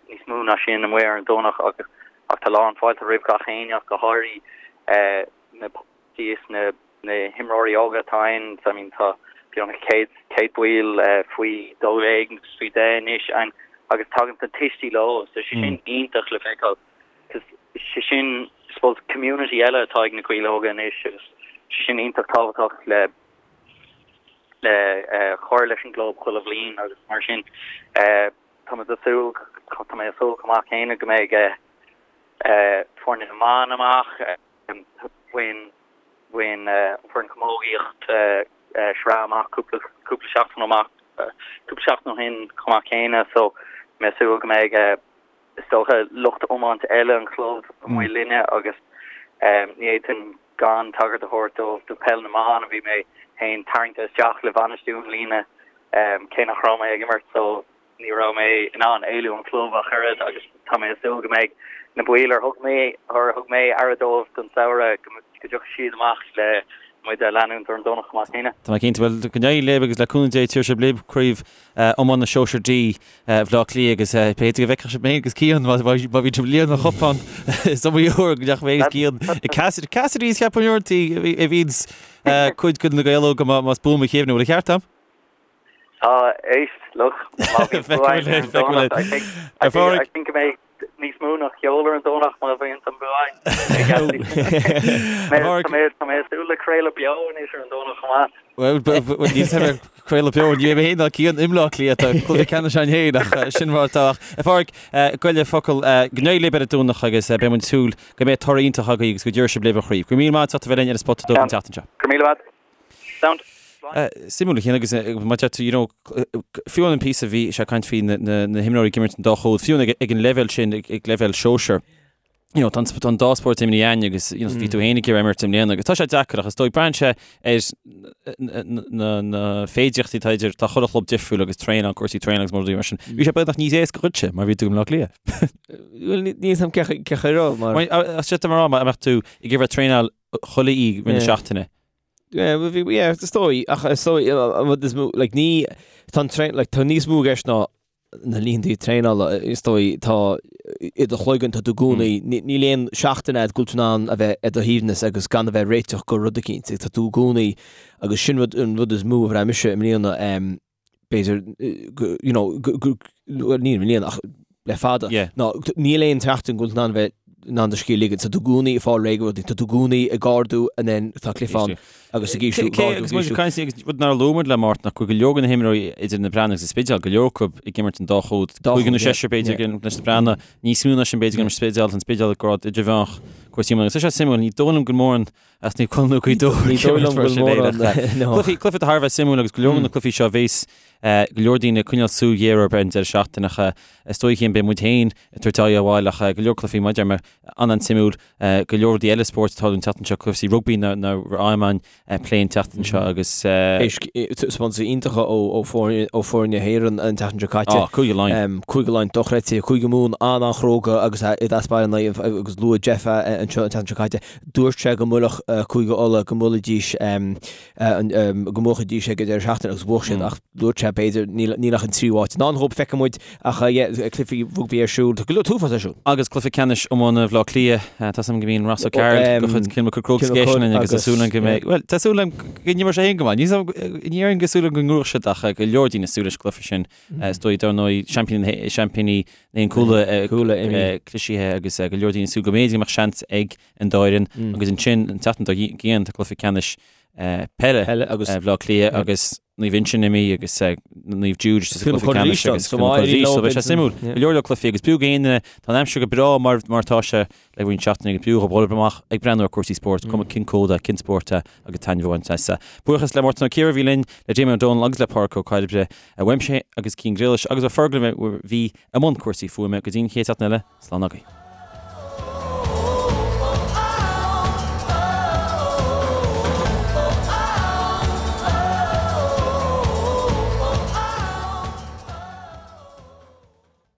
níos mó ná sin amuigh ar an Domhnach ach ach tá lán fáilte roimh gach éinne ach go háirithe na is na na himreoirí óga atá ann, I mean tá beagnach 100, 100 baill faoi 12 agus faoi 10 anois ann agus tagann na tuistí leo so sé sin iontach le feiceáil cos sé sin I suppose community eile atá ag na Gaeil Óga anois agus sé sin iontach tábhachtach le le cur leis an gclub chuile bhliain agus mar sin tá muid ag súil tá mé ag súil chomh maith céanna go mbeidh foirne na mban amach. Bhain bhain an foireann camógaíocht sraith amach cúpla cúpla seachtain amach cúpla seachtain ó shin chomh maith céanna so mé ag súil go mbeidh is dócha lucht iomáint eile an chlub amuigh linne agus ní fhéadfainn gan tagairt a thabhairt dóibh do peil na mban a bhí mé féin tarraingthe isteach le bhainistiú i mbliana cé nach raibh mé ag imirt so Ní raibh mé in ann éalú ón chlub ach oiread agus tá mé ag súil go mbeidh na baill ar thug mé ar thug mé aire dóibh don samhradh go dtiocfaidh siad amach le muid a leanúint ar an Domhnach chomh maith céanna. Tá mé cinnte. Bhuel, go n-éirí libh agus le cúnamh Dé tabharfaidh sibh libh craobh iomána Sóisear D Bhaile Átha Cliath agus b'fhéidir go bhfeicfeadh sibh mé agus Cian má má bhí sibh ag líonadh an chupán is iomaí uair go ndeachaigh mé agus Cian i Cassidy Cassidy's cheapfainn uaireanta a bhíonns cuid de na Gaeil Óga más buan mo chuimhne. Bhfuil an ceart agam? Tá, éist, look, má bhíonn bua againn ar an Domhnach, I think, I think, I think go mbeidh níos mó ná ceol ar an Domhnach má bhíonn an bua againn. Tá mé, tá mé ag súil le craoladh beo anois ar an Domhnach chomh maith. Bhuel, níl sé ar craoladh beo, ní bheidh mé féin ná Cian i mBleá Cliath, tá cluiche ceannais againn féin ach sin mar atá. Ach, a Pháraic, goile focal, go n-éirí libh ar an Domhnach agus beidh muid ag súil go mbeidh toradh iontach agaibh agus go dtabharfaidh sibh libh an chraobh. Go raibh míle maith agat as ucht a bheith linn ar an Spota Dubh an tseachtain seo. Go raibh míle maith. Sound. Suimiúil a Chian agus mar a deir tú, you know, fiú an píosa bhí sé ag caint faoi na himreoirí ag imirt an dá chód, fiú ag an leibhéal sin, ag leibhéal sóisear. you know, tá an tá an dá spórt imithe againn agus you know, bhí tú féin ag iarraidh imirt i mbliana agus tá sé deacair ach is dóigh braitheann sé ar na, na, na féidearthachtaí atá idir tá chuile chlub difriúil agus traenáil, cúrsaí traenála agus rudaí mar sin. Bhí sé beagnach níos éasca dhuitse mar bhí tú i mBleá Cliath. Bhuel, ní- níl a fhios agam cé chaoi- cé chaoi raibh mar. Mar, a- a- Sé mar má mbeadh tú ag iarraidh traenáil chuile oíche i rith na Yeah. seachtaine. Yeah, well, bhí- yeah, is dóigh, ach is dóigh, an rud is mó, like, ní, tá an traen, like, tá níos mó i gceist ná na laethanta traenála, is dóigh, tá i do chloigeann, tá tú i gcónaí, níl aon seachtain agat go bhfuil tú in ann a bheith ar do shuaimhneas agus gan a bheith ag réiteach go rud eicínt, tá tú i gcónaí, agus sin rud, an rud is mó a bhraith mise i mbliana, b'fhéidir, you know, bhuel ní i mbliana ach le fada, ná níl aon tseachtain go bhfuil tú in ann a bheith in ann do scíth a ligean, tá tú i gcónaí ag fáil réidh go rudaí, tá tú i gcónaí ag ardú and then tá cluiche ann agus ag ísliú, ag ardú, ag ísliú. Agus muid rud nár luaigh muid le Mártan ach go bhfuil go leor de na himreoirí idir na Breathnaigh agus an Spidéal, go leor acu ag imirt an dá chód, cúigear nó seisear b'fhéidir ag imirt leis na Breathnaigh, níos mó ná sin b'fhéidir ag imirt Spidéal, an Spidéal ag grád idirmheánach cúrsaí iomána. Agus tá sé suimiúil, ní dóigh liom go mórán as Naomh Conaill nó Gaoth Dobhair Ní dóigh liom go bhfuil mórán, no. Cluichí, cluiche thar a bheith suimiúil agus go leor de na cluichí seo a bheas go leor daoine ag coinneáil súil ghéar orthu ar an deireadh seachtaine ach is dóigh féin beidh muid féin ag tabhairt aghaidh abhaile ach go leor cluichí maidir mar an-an-suimiúil go leor rudaí eile spóirt atá an tseachtain seo cúrsaí rugbaí na na Iomáin plé an tseachtain seo agus Taispeántais iontacha ó ó foirne na hÉireann an tseachtain seo caite. Á, Cúige Laighean. Cúige Laighean dochreidte, Cúige Mumhan an-an-chróga agus i dtaispeáin agus luaigh Jeff anseo an tseachtain seo caite. Dúirt sé go mbuailfeadh Cúige Uladh go mbuailfidís go mbuafaidís ag an deireadh seachtaine agus bhuaigh siad ach dúirt sé b'fhéidir níl ach an tríú háit i ndán dhóibh feicfidh muid ach cluichí rugbaí ar siúl tá go leor t-uafás ar siúl. Agus cluiche ceannais iomána Bhaile Átha Cliath, tá 's agam go mbíonn Ross O'Carroll de chuid Cill Mochuda Crokes ag éisteacht linn agus tá súil agam go mbeidh, bhuel tá súil agam go n-imreoidh sé féin go maith, ní déarfainn go súil agam go ngnóthóidh siad ach go leor daoine ag súil leis an gcluiche sin. Is dóigh dar ndóigh seaimpíní na Cúla cliste agus go leor daoine ag súil go mb'fhéidir go mbeadh seans ag an dá fhoireann agus ansin an tseachtain dár gcionn tá cluiche ceannais peile Bhaile Átha Cliath agus Naomh Uinseann imithe agus Naomh Jude sa chluiche ceannais agus so beidh sé suimiúil. Go leor leor cluichí agus b'fhiú go éinne tá an aimsir go breá mar mar atá sé le roinnt seachtainí agus b'fhiú dhóibh dhul amach ag breathnú ar cúrsaí spóirt, cuma cén cód é, cén spórt é agus taitneamh a bhaint as. Buíochas le Mártan Ó Ciardha a bhí linn, le Damien Ó Dónaill agus le Pádraic Ó Cairbre, uaimse agus Cian Griallais agus ó Fergal a bhí i mbun cúrsaí fuaime go dtí an chéad seachtain eile, slán agaibh.